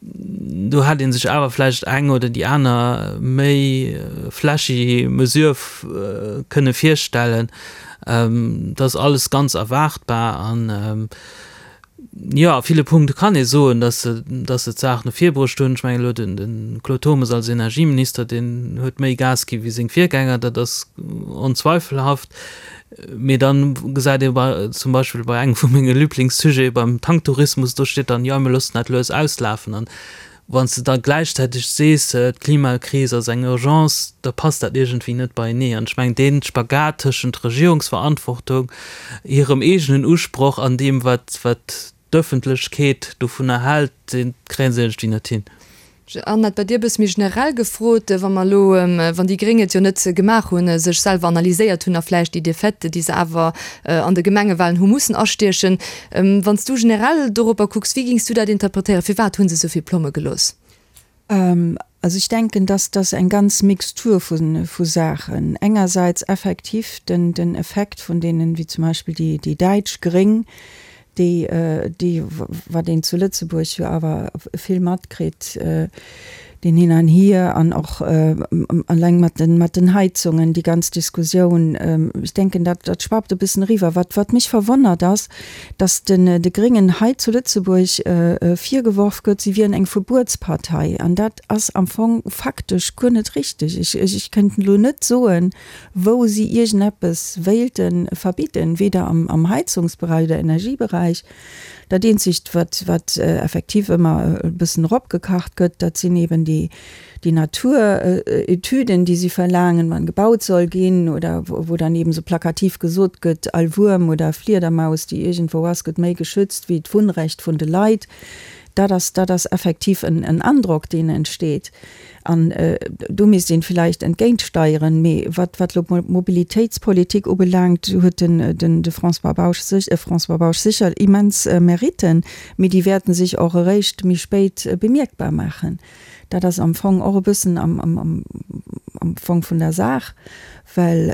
Do hätt ee sech awer vläicht eng oder déi aner méi flashy Mesure kënne virstellen. Dat ass alles ganz erwaartbar an, Jo, a ville Punkte kann ee soen, datt se, datt se d'Saach no vir bruecht hunn. Ech mengen elo den, de Claude Turmes als Energieminister, deen huet méi Gas gi wéi seng Virgänger, dat ass onzweifelhaft. Mee dann gesäit ee bei, zum Beispill bei engem vu menge Liblingssujete, beim Tanktourismus, do steet dann, jo, mir loossen dat lues auslafen. An Wann s de da gläichzäiteg sees, d'Klimakris ass eng Urgence, da passt dat iergendwéi net beienee. An ech mengen, dee Spagat tëschent Regierungsverantwortung, hirem eegenen Usproch an deem, wat d'Ëffentlechkeet dovunner hält, dee kréie se iergendwéi net hin. Annette, bei dir e bësse méi generell gefrot, Wa mer elo, wann déi Gréng et jo net gemaach hunn, sech selwer analyséiert hunn a vläicht déi Defaite, déi se awer an de Gemengewahlen hu mussen astiechen, Wann s du generell doropper kucks, wéi gings du dat interpretéieren? Firwat hu se esou vill Plomme gelooss? Also ech denken, dass dass eng ganz Mixtur vu Saachen. Engersäits effektiv den den Effekt vun deenen, wéi zum Beispill déi déi däitsch Gréng, déi déi wat een zu Lëtzebuerg jo awer vill matkritt, deen Hin an Hier an och alleng mat den, mat den Heizungen, déi ganz Diskussioun, ech denken, dat, dat schwappt e bëssen eriwwer. Wat, wat mech verwonnert ass, dass den, de Gréngen hei zu Lëtzebuerg virgeworf gëtt, si wieren eng Verbuetspartei. An dat ass am Fong faktesch guer net richtig. Ech, ech, ech kënnt elo net soen, wou si iergendeppes wéilte verbidden, weder am, am Heizungsbereich oder Energiebereich. Dat eenzegt, wat, wat effektiv ëmmer e bëssen eropgekacht gëtt, dat sinn eben déi, déi Naturetüden, déi si verlaangen, wann gebaut soll ginn oder wou dann eben esou plakativ gesot gëtt, all Wuerm oder Fliedermaus, déi iergendwou ass, gëtt méi geschützt wéi d'Wunnrecht vun de Leit. Dat ass, dat ass effektiv en, en Androck, deen entsteet. An do misst een villäicht entgéintsteieren. Mee wat wat elo d'Mobilitéitspolitik ubelaangt, huet den den de François Bausch sech François Bausch sécher immens Meritten, mee déi wäerten sech och eréischt méi spéit bemierkbar maachen. Dat ass am Fong och e bëssen am am am am Fong vun der Saach, well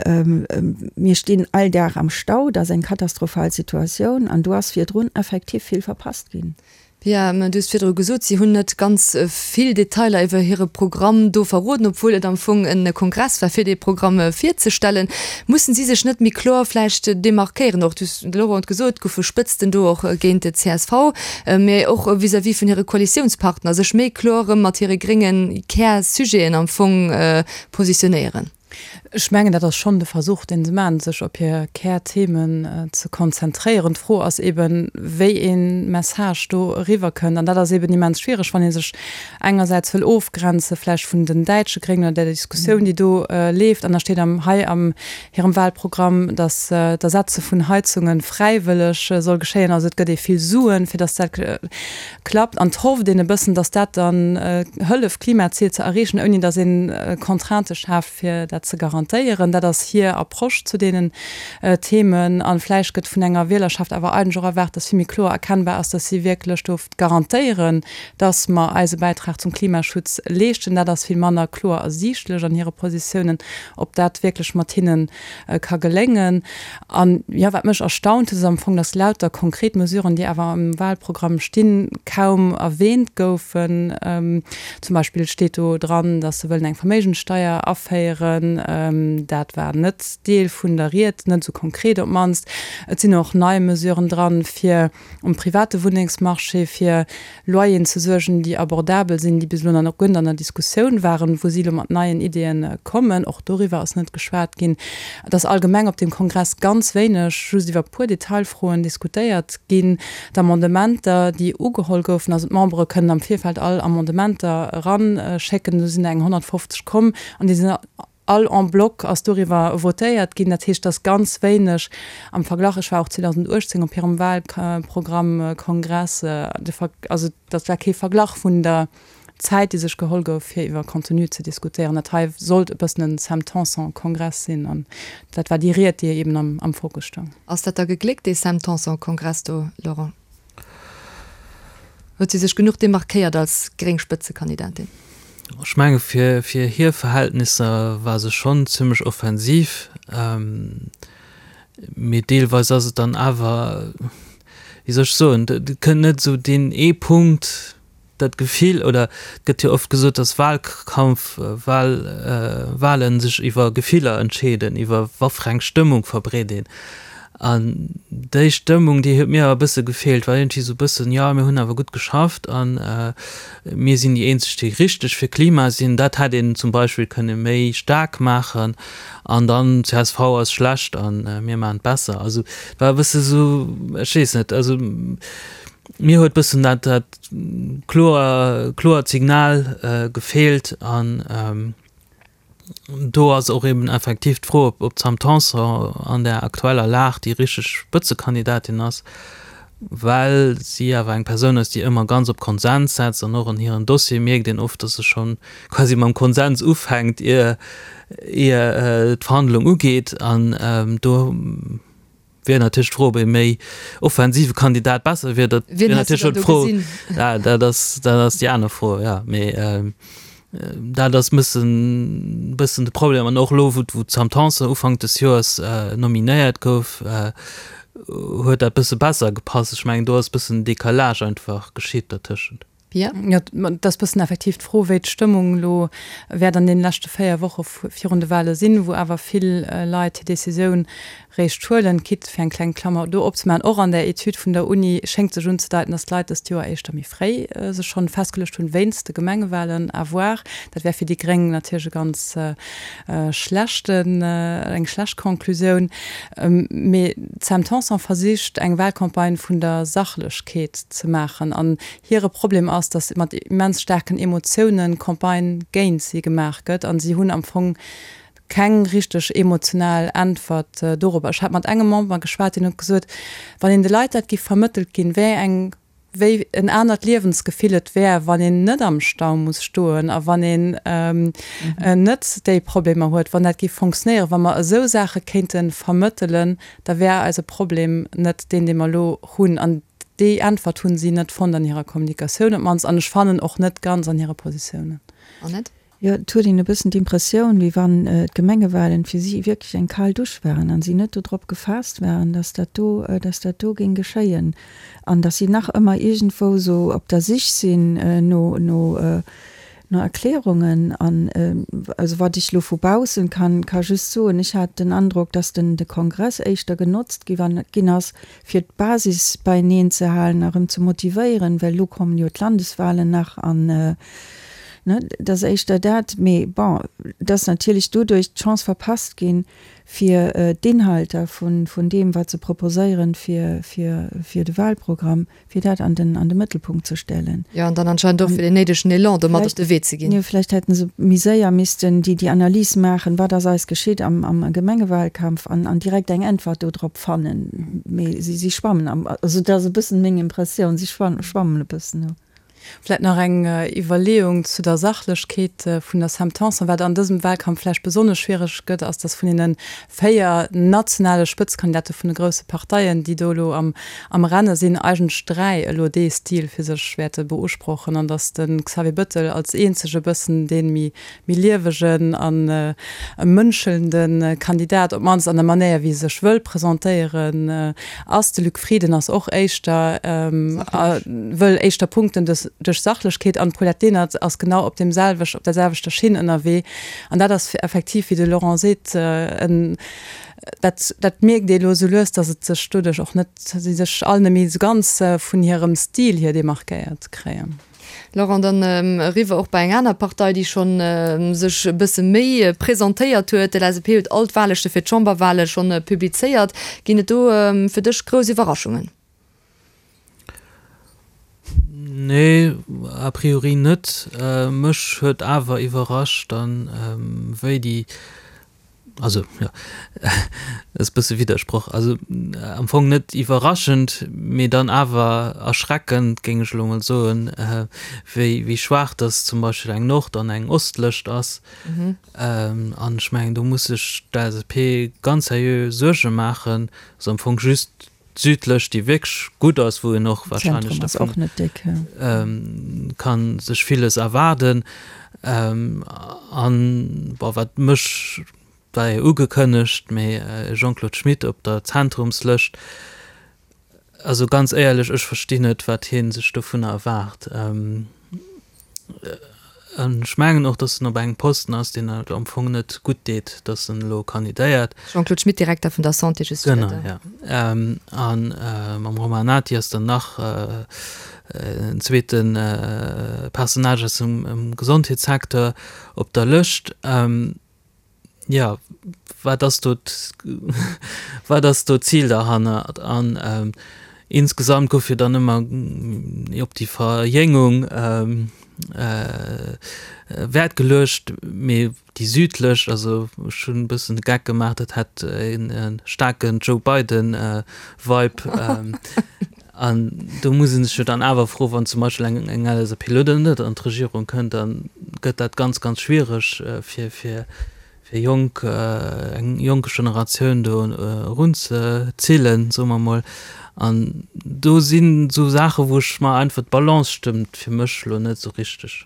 mir stinn all Dag am Stau, dat ass eng katastrophal Situatioun an do ass virdrun effektiv vill verpasst ginn. Pia, du hues virdru gesot, si hunn net ganz vill Detailer iwwer hire Programm do verroden, obwuel et am Fong e Kongress war, fir dee Programm virzestellen. Mussen si sech net méi kloer vläicht demarkéieren? Och, du hues, de Laurent huet gesot, et goufe Spëtzten do och géint d'CSV, mä och vis-à-vis vun hire Koalitiounspartner, sech méi kloer erëm mat hire grénge Kärsujeten am Fong positionéieren. Ech mengen, dat ass schonn de Versuch, dee se maachen, sech op hir Kärthemen ze konzentréieren. D'Fro ass eben, wéi ee Message do eriwwerkënnt. An dat ass eben immens schwiereg, wann ee sech engersäits wëll ofgrenze vläicht vun den däitsche Gréngen oder der Diskussioun, déi do leeft. An da steet am hei am hirem Wahlprogramm, datt d'Ersetze vun Heizunge fräiwëlleg soll geschéien. Also et gëtt ee vill Suen, fir datt dat klappt an 't hofft een e bëssen, dass dat dann hëlleft d'Klimazil ze erreechen, ouni dass een Contraintë schaaft fir dat. dat ze garantéieren. Dat ass hir Approche zu deenen Themen. A vläicht gëtt vun enger Wielerschaft awer eigentlech och erwaart, dass vill méi kloer erkennbar ass, dass si wierklech do garantéieren, dass mer eise Bäitrag zum Klimaschutz leeschten. Dat ass vill manner kloer ersiichtlech an hire Positiounen, ob dat wierklech mat hinne ka geléngen. An, jo, wat mech erstaunt huet, ass am Fong, dass lauter konkret Mesuren, déi awer am Wahlprogramm stinn, kaum erwähnt goufen. Zum Beispill steet do dran, dass se wëllen eng Verméigenssteier aféieren. Dat war net Deel vun der Ried, net esou konkret op d'mannst. Et sinn och nei Mesuren dran, fir um private Wunnengsmarché fir Loyeren ze suergen, déi abordabel sinn, déi bis elo nach guer net an der Diskussioun waren, wou si elo mat neien Ideeën kommen. Och doriwwer ass net geschwat ginn. Et ass allgemeng op deem Kongress ganz wéineg, just iwwer e puer Detailfroen diskutéiert ginn. D'Amendementer, déi ugeholl goufen, also d'Membere kënnen am Virfeld all Amendementer eranschécken, do sinn der eng 150 komm an déi sinn All en bloc ass doriwwer votéiert ginn. Dat heescht, dass ganz wéineg am Verglach, ech war och 2018 op hirem Wahlprogrammkongress, also dat war kee Verglach vun der Zäit, déi sech geholl gouf, fir iwwer Contenu ze diskutéieren. Dat hei sollt e bëssen en Sam Tanson-Kongress sinn an dat war déi Ried, déi eben am Fokus stoung. Ass dat da gegléckt, dee Sam Tanson-Kongress do, Laurent? Huet si sech genuch demarkéiert als gréng Spëtzekandidatin? Ech menge fir hir Verhältnisser war se schonn zimmlech offensiv, mee deelweis ass et dann awer, wéi soll ech soen, et kënnt net esou deen ee Punkt, dat Gefill, oder et gëtt jo oft gesot, datt Wahlkampf, Wahl, Wahlen sech iwwer Gefiller entscheeden, iwwer wat fir eng Stëmmung verbreet een. An déi Stëmmung, déi huet mir awer e bësse gefeelt, war iergendwéi esou e bëssen, jo mir hunn awer gutt geschafft a mir sinn déi eenzeg, déi richteg fir Klima sinn. Dat hätt een zum Beispill kënne méi staark maachen. An dann csv ass schlecht a mir maachen et besser. Also et war e bësse esou, ech weess net, also mir huet bëssen dat dat kloer kloert Signal gefeelt an do ass och eben effektiv d'Fro, ob ob d'Sam Tanson an der aktueller Lag déi richteg Spëtzekandidatin ass, well si awer eng Persoun ass, déi ëmmer ganz op Konsens setzt an och an hiren Dossiere mierkt een oft, datt se schonn quasi mam Konsens ufänkt, ier ier d'Verhandlung ugeet an do Wier natierlech d'Fro, ob ee méi offensive Kandidat besser wier. Dat wier natierlech och d'Fro. Ja, dat ass, dat ass déi aner Fro, ja. Mee dat ass bëssen, bëssen de Problem. An och elo, wou, wou d'Sam Tanson Ufank des Joers nominéiert gouf, huet dat bësse besser gepasst. Ech mengen, do ass bëssen Decalage einfach geschitt dertëschent. Pia? Jo, et ass bëssen effektiv d'Fro, wéi d'Stëmmung elo wäert an deene leschte 4 Woche virun de Wale sinn, wou awer vill Leit hir Decisioun réischt huelen. Quitte, fir eng kleng Klammer do opzemaachen, och an der Etüd vun der Uni schéngt sech unzedeiten, datt d'Leit dëst Joer éischter méi fréi sech schonn festgeluecht hunn, wéinst de Gemengewalen. À voir. Dat wär fir déi Gréng natierlech e ganz schlechten, eng schlecht Conclusioun. Mee d'Sam Tanson versicht, eng Walcampagne vun der Sachlechkeet ze maachen. An Hire Problem ass, datt mat immens staarken Emotiounen Campagne géint si gemaach gëtt an si hunn am Fong keng richteg emotional Äntwert dorobber. Ech hat mat engem Member geschwat, deen huet gesot, wann een de Leit dat giff vermëttelt ginn, wéi eng, wéi en anert Liewensgefill et wär, wann een net am Stau muss stoen a wann een net déi Problemer huet, wann dat giff fonctionnéieren, wa mer esou Saache kéinte vermëttelen, da wär eise Problem net deen, dee mer elo hunn. An Déi Äntwert hunn si net fonnt an hirer Kommunikatioun op d'mannst, an ech fannen och net ganz an hire Positiounen. Annette? Jo, et huet een e bëssen d'Impressioun, wéi wann d'Gemengewahlen fir si wierklech eng kal Dusch waren an si net dodrop gefaasst waren, dass dat do, dass dat do géing geschéien an dass si nach ëmmer iergendwou esou op der Sich sinn no, no, no Erklärungen. An also wat ech elo vu baussen kann, ka just soen, ech hat den Androck, dass den, de Kongress éischter genotzt gi wann, ginn ass, fir d'Basis beieneen ze halen a rëm ze motivéieren, well elo kommen jo d'Landeswahlen nach an, ne, et ass éischter dat. Mee bon, et ass natierlech doduerch d'Chance verpasst ginn, fir d'Inhalter vun deem, wat se proposéieren fir de Wahlprogramm, fir dat an den, an de Mëttelpunkt ze stellen. Jo, an dann anscheinend och fir deen néidegen Elan do mat op de Wee ze ginn. Jo, vläicht hätte se méi séier missten déi, déi Analys maachen, wat ass eis geschitt am, am Gemengewahlkampf an, an direkt eng Äntwert do drop fannen. Mee si, si schwammen am, also dat ass e bëssen meng Impressioun, si schwammen e bëssen do. Vläit nach eng Iwwerleeung zu der Sachlechkeet vun der Sam Tanson. Wat an dësem Wahlkampf vläicht besonnesch schwiereg gëtt, ass, datt vun deene 4 nationale Spëtzkandidate vun de grousse Parteien, déi do elo am Renne sinn, eigentlech 3 elo dee Stil fir sech wäerte beusprochen an datt de Xavier Bëttel als eenzege bëssen dee méi méi liewegen a mënschelnde Kandidat, op d'mannst an der Manéier wéi e sech wëll presentéieren, ass. De Luc Frieden ass och éischter, wëll éischter punkten duerch Sachlechkeet an d'Paulette Lenert ass genau op deem selwech, op der selwechter Schinn ënnerwee. An dat ass effektiv, wéi de Laurent seet, en, dat, dat mierkt ee elo esou lues, datt et sech doduerch och net, si sech all net méi esou ganz vun hirem Stil hier demarkéiert kréien. Laurent, dann eriwwer och bei eng aner Partei, déi scho sech e bësse méi presentéiert huet. D'LSAP huet all d'Wahllëschte fir d'Chamberwahle schonn publizéiert. Ginn et do fir dech grouss Iwwerraschungen? Nee, a priori net. Mech huet awer iwwerrascht dann, wéi déi Also, jo, ass e bësse Widdersproch. Also am Fong net iwwerraschend, mee dann awer erschreckend, géing ech elo mol soen, wéi, wéi schwaach dass zum Beispill eng Nord an eng Ostlëscht ass. An ech mengen, do muss sech d'LSAP ganz seriö Suerge maachen. Also am Fong just d'Südlëscht, déi wierklech gutt ass, wou een och wahrscheinlech dervun ka sech villes erwaarden. An, bon, wat mech, war jo ugekënnegt, mee Jean-Claude Schmit op der Zentrumslëscht, also ganz éierlech, ech verstinn net, wat hie sech dovunner erwaart. An ech mengen och, datt en op engem Posten ass, deen et am Fong net gutt deet, datt en elo kandidéiert. Jean-Claude Schmit, Direkter vun der Santé, just fir Genau, ja. A mam Romain Nati ass dann nach en zweete Personnage aus dem Gesondheetssecteur op der Lëscht. Jo, wat ass do, wat ass do d'Zil derhannert? An insgesamt gouf jo dann ëmmer op déi Verjéngung Wäert geluecht, mee déi südlech, also ech hunn e bëssen de Geck gemaach, dat hätt e staarken Joe Biden-Vibe. An do muss ee sech jo dann awer froen, wann zum Beispill eng eng LSAP elo dann net an d'Regierung kënnt, da gëtt dat ganz, ganz schwiereg fir fir fir jonk eng jonk Generatioun do erunzezillen, soe mer emol. An do sinn esou Saachen, wou ech mer einfach, d'Balance stëmmt fir mech elo net esou richteg.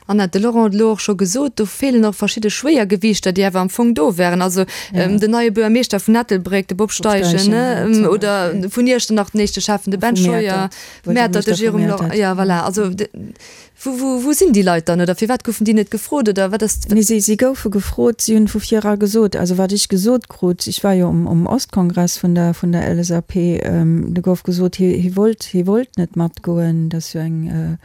Annette, de Laurent huet elo och scho gesot, do feelen och verschidde Schwéiergewiichter, déi awer am Fong do wären. Also den neie Buergermeeschter vun Ettelbréck, de Bob Steichen, ne, oder vun Iechternach den éischte Schäffen, de Ben Scheuer, Mäertert, de Jérôme Lor, jo voilà. Also wou, wou, wou sinn déi Leit dann oder firwat goufen déi net gefrot oder wat ass? Nee, si, si goufe gefrot, si hunn vu vir era gesot, also wat ech gesot krut, ech war jo um, um Ostkongress vun der, vun der LSAP, do gouf gesot, hie, hie wollt, hie wollt net matgoen, dat ass jo eng,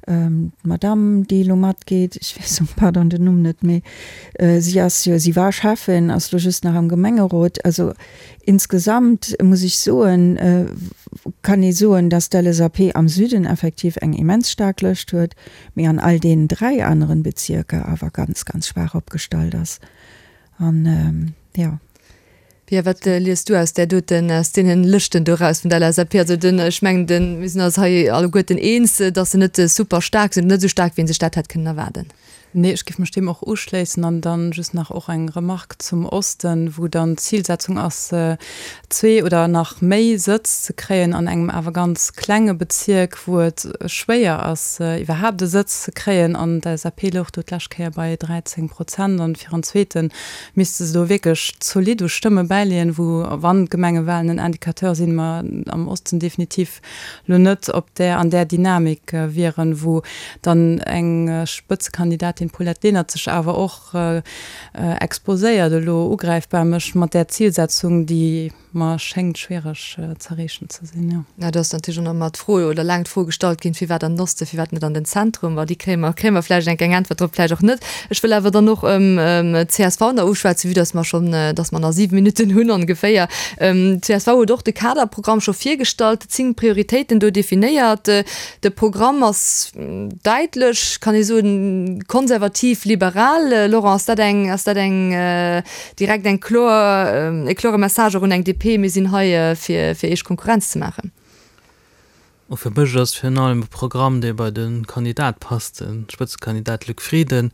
D'Madame, déi elo matgeet, ech weess, pardon, den Numm net méi, si ass jo, si war Schäffin, ass elo just nach am Gemengerot. Also insgesamt muss ech soen, kann ee soen, dass d'LSAP am Süden effektiv eng immens staark Lëscht huet, mee an all deenen 3 aneren Bezierker awer ganz, ganz schwaach opgestallt ass. An, jo. Pia, wat lies du aus där doten, aus deenen Lëschten do eraus vun der LSAP? Also den, ech mengen den, mir sinn eis hei alleguerten eens, datt se net super staark sinn, net esou staark wéi een sech dat hätt kënnen erwaarden. Nee, ech géif mech deem och uschléissen an dann just nach och eng Remarque zum Osten, wou dann d'Zilsetzung ass, zwee oder nach méi Sëtz ze kréien an engem awer ganz klenge Bezierk, wou et schwéier ass, iwwerhaapt e Sëtz ze kréien. An d'LSAP louch do d'lescht Kéier bei 13 Prozent an fir en zweete misste se do wierklech zolidd u Stëmme bäileeën, wou, wann d'Gemengewahlen en Indicateur sinn, mer am Osten definitiv lo net op där, an där Dynamik wieren, wou dann eng Spëtzekandidatin, Paulette Lenert, sech awer och exposéiert elo ugräifbar mécht mat där Zilsetzung, déi mer schéngt schwiereg z'erreechen ze sinn, jo. Jo, do ass natierlech och nach ëmmer d'Fro, oder laang d'Fro gestallt ginn, firwat an den Osten, firwat net an den Zentrum? Ma déi kréie mer, kréie mer vläicht eng eng Äntwert drop, vläicht och net. Ech wëll awer dann och d'CSV nach uschwätzen, vue dass mer schonn, dass mer nach 7 Minutten hunn ongeféier. D'CSV huet och de Kaderprogramm scho virgestallt, 10 Prioritéiten do definéiert. De Programm ass däitlech, kann ee soen, konservativ-liberal. Laurent, ass dat eng, ass dat eng Direkt eng kloer, e klore Message och un eng DP, mir sinn hei fir fir Iech Konkurrenz ze maachen. Bon, fir mech ass virun allem e Programm, dee bei de Kandidat passt, de Spëtzekandidat Luc Frieden,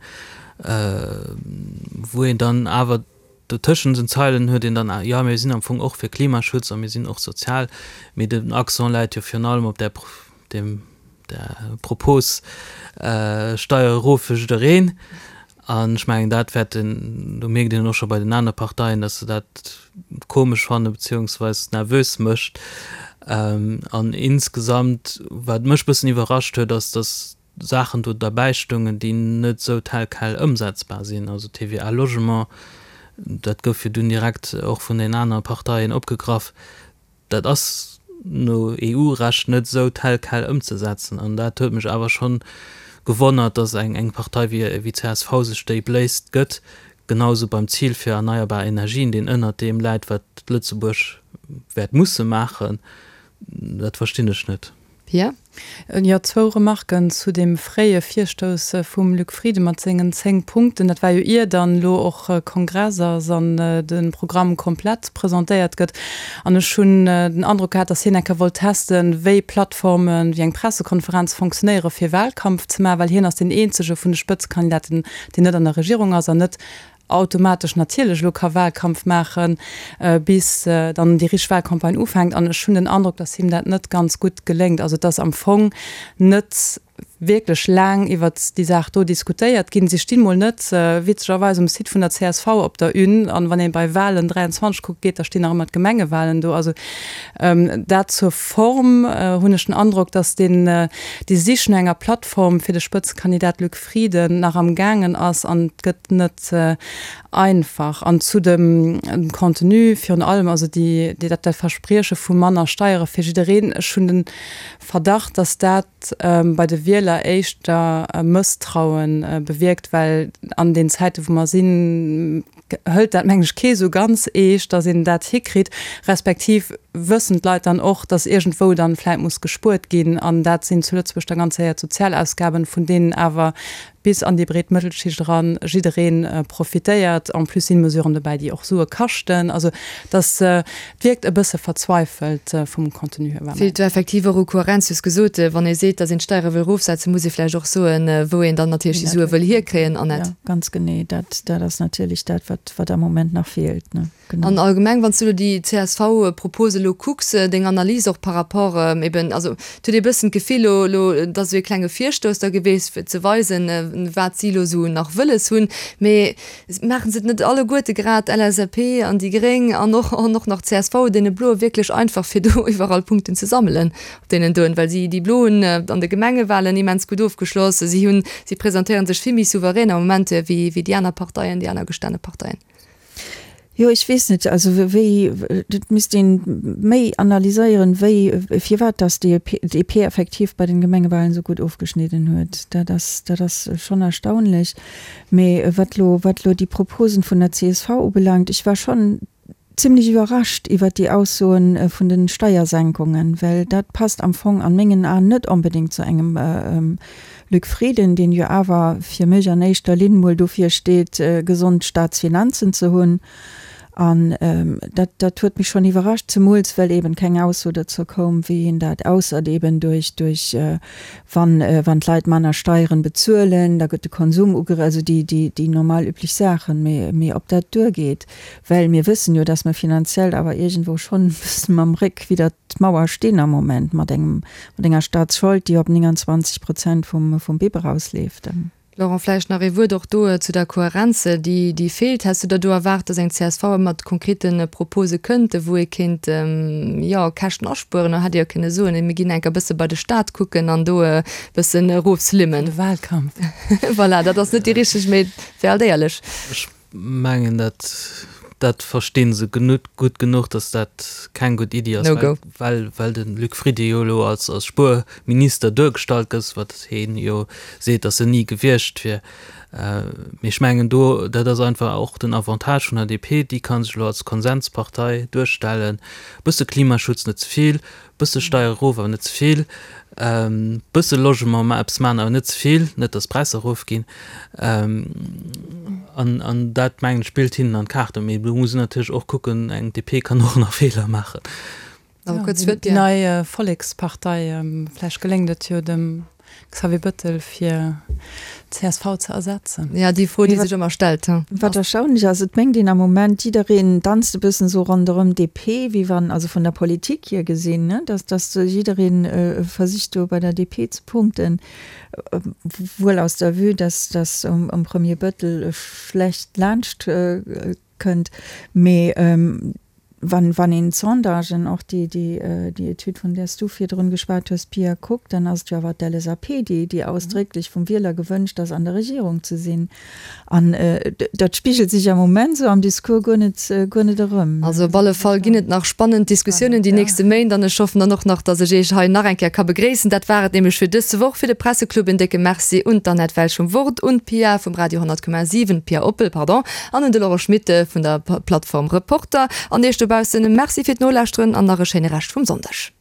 wou een dann awer do tëschent den Zeilen huet een dann, jo mir sinn am Fong och fir Klimaschutz a mir sinn och sozial, mee den Accent läit jo virun allem op där, deem, där Propos Steier erof fir jiddereen. An ech mengen, dat wäert en, do mierkt een och scho bei den anere Parteien, datt se dat komesch fanne beziehungsweis nervös mécht. An insgesamt, wat mech e bëssen iwwerrascht huet, ass, datt Saachen do derbäi stoungen, déi net esou tel quel ëmsetzbar sinn. Also TVA Logement, dat gouf jo dunn direkt och vun den anere Parteien opgegraff. Dat ass no EU-Recht net esou tel quel ëmzesetzen. An dat huet mech awer schonn gewonnert, datt eng Partei wéi csv sech déi Bléisst gëtt, genau esou beim Zil fir erneierbar Energien, deen ënnert deem läit, wat Lëtzebuerg wäert musse maachen. Dat verstinn ech net. Pia? Jo, zwou Remarken zu deem fréie Virstouss vum Luc Frieden mat sengen 10 Punkten. Dat war jo ier dann elo och Kongress ass an de Programm komplett presentéiert gëtt. An ech hunn den Androck gehat, datt hien eng Kéier wollt testen, wéi Plattformen, wéi eng Pressekonferenz fonctionnéiere fir Wahlkampf ze maachen, well hien ass deen eenzege vun de Spëtzekandidaten, deen net an der Regierung ass an net automatesch natierlech elo ka Wahlkampf maachen, bis dann déi richteg Wahlcampagne ufänkt. An ech hunn den Androck, datt him dat net ganz gutt geléngt. Also et ass am Fong net wierklech laang iwwert déi Saach do diskutéiert ginn. Si stinn mol net, witzegerweis, um Site vun der csv op der Une. An wann ee bei Wahlen 23 kucke geet, da stinn nach ëmmer d'Gemengewahlen do. Also dat zur Form hunn ech den Androck, datt deen, déi Sich no enger Plattform fir de Spëtzekandidat Luc Frieden nach am gaangen ass an et gëtt net einfach. An zu dem Contenu virun allem, also déi, dat dat Versprieche vu manner Steiere fir jiddereen, ech hunn de Verdacht, datt dat bei de Wieler éischter Mësstraue bewierkt, well an den Zäite wou mer sinn, hëlt dat mengen ech kee sou ganz eescht, datt een dat hikritt, respektiv wëssen d'Leit dann och, datt iergendwou dann vläit muss gespuert ginn an dat sinn zu Lëtzebuerg da ganz séier d'Sozialausgaben, vun deenen awer bis an déi breet Mëttelschicht eran jidderee profitéiert. En plus sinn Mesuren dobäi, déi och Sue kaschten. Also dass et wierkt e bësse verzweifelt vum Contenu hier. Feelt do effektiv och u Kohärenz. Du hues gesot, wann ee seet, datt een d'Steiere wëll erofsetzen, muss ee vläicht och soen, wou een dann natierlech déi Sue wëll hierkréien, Annette. Jo, ganz genee. Dat, dat ass natierlech dat, wat, wat am Moment nach feelt, ne? Genau. An allgemeng, wann s du elo déi CSV-Propose elo kucks, deng Analys och par rapport eben, also et huet ee bëssen d'Gefill elo, elo, et ass esou ee klenge Virstouss da geweest, fir ze weisen, wat si elo esou nach wëlles hunn, mee Maachen se et net alleguerte grad, d'LSAP an déi Gréng an och an och nach csv, deene Bloe wierklech einfach fir do iwwerall Punkten ze sammelen op deenen doen, well si déi Blo hunn an de Gemengewahlen immens gutt ofgeschloss, si hunn, si presentéieren sech vill méi souverän am Moment wéi wéi déi aner Parteien, déi aner gestane Parteien. Jo, ech weess net, also wéi, et misst een méi analyséieren, wéi, firwat dass déi DP effektiv bei den Gemengewahlen esou gutt ofgeschnidden huet. Dat ass, dat ass schonn erstaunlech. Mee wat elo, wat elo déi Proposen vun der csv ubelaangt, ech war schonn zimlech iwwerrascht iwwert déi Aussoen vun den Steiersenkungen, well dat passt am Fong an mengen Aen net onbedéngt zu engem Luc Frieden, deen jo awer fir mech an éischter Linn mol dofir steet, gesond Staatsfinanzen ze hunn. An dat, dat huet mech schonn iwwerrascht, zemools well eben keng Ausso dozou koum, wéi een dat, ausser eben duerch, duerch wann, wann d'Leit manner Steieren bezuelen, da gëtt de Konsum ugere, also déi, déi, déi normal üblech Saachen. Mee, mee ob dat duergeet, well mir wëssen jo, dass mer finanziell awer iergendwou schonn e bëssen mam Réck widder d'Mauer stinn am Moment mat engem, mat enger Staatsschold, déi op 29 Prozent vum, vum BIP erausleeft. Laurent, vläicht nach ee Wuert och do zu der Kohärenz, déi, déi feelt. Häss du der do erwaart, dass eng csv mat konkrete Propose kënnt, wou ee kéint, jo, Käschten aspueren? Da hätt Dir jo kënne soen, mir ginn enker bësse bei de Stat kucken an do e bëssen erofslimmen. De Wahlkampf. Voilà, dat ass net déi richteg, mee et wär alt éierlech. Ech mengen, dat, dat versti se gutt genuch, datt dat keng gutt Iddi ass, well, well, well de Luc Frieden jo elo als, als Spuerminister duergestallt gëtt, wat hien jo seet, datt en ni gewiescht wier. Mee ech mengen do, dat ass einfach och den Avantage vun der DP, déi ka sech elo als Konsenspartei duerstellen, bësse Klimaschutz, net ze vill, Bësse Steier erof, awer net ze vill. Bësse Logement, ma eppes maachen, awer net ze vill, net datt d'Präisser erofginn. An, an dat, mengen ech, spillt hinnen an d'Kaarten. Mee do muss een natierlech och kucken, eng DP kann och nach Feeler maachen. Nach e kuerzt Wuert, Déi nei Vollekspartei, vläicht geléngt et jo dem Xavier Bëttel fir csv ze ersetzen. Ja, déi Fro, déi sech ëmmer stellt. Wat erstaunlech ass, et mengt een am Moment, jiddereen danzt e bëssen esou ronderëm DP, wéi wann, also vun der Politik hier gesinn, ne, dass, dass jiddereen versicht do bei der DP ze punkten, wuel aus der Vue, dass, dass um Premier Bëttel schlecht laanscht kënnt. Mee wann, wann een d'Sondagen, och déi, déi, déi Etüd, vun där s du virdrun geschwat hues, Pia, kuckt, dann ass et jo awer d'LSAP, déi, déi ausdrécklech vum Wieler gewënscht ass, an der Regierung ze sinn. An dat spigelt sech am Moment esou am Discours guer net, guer net erëm. Also op alle Fall ginn et nach spannend Diskussiounen déi nächste Méint an ech hoffen dann och nach, dass ech Iech hei nach eng Kéier ka begréissen. Dat war et nämlech fir dës Woch fir de Presseclub. En décke Merci un d'Annette Welsch vum Wort, un d'Pia vum Radio 100,7, d'Pia Oppel, pardon, An un de Laurent Schmit vun der Plattform Reporter. An iech dobaussen Merci fir d'Nolauschteren an nach e schéine Rescht vum Sonndeg.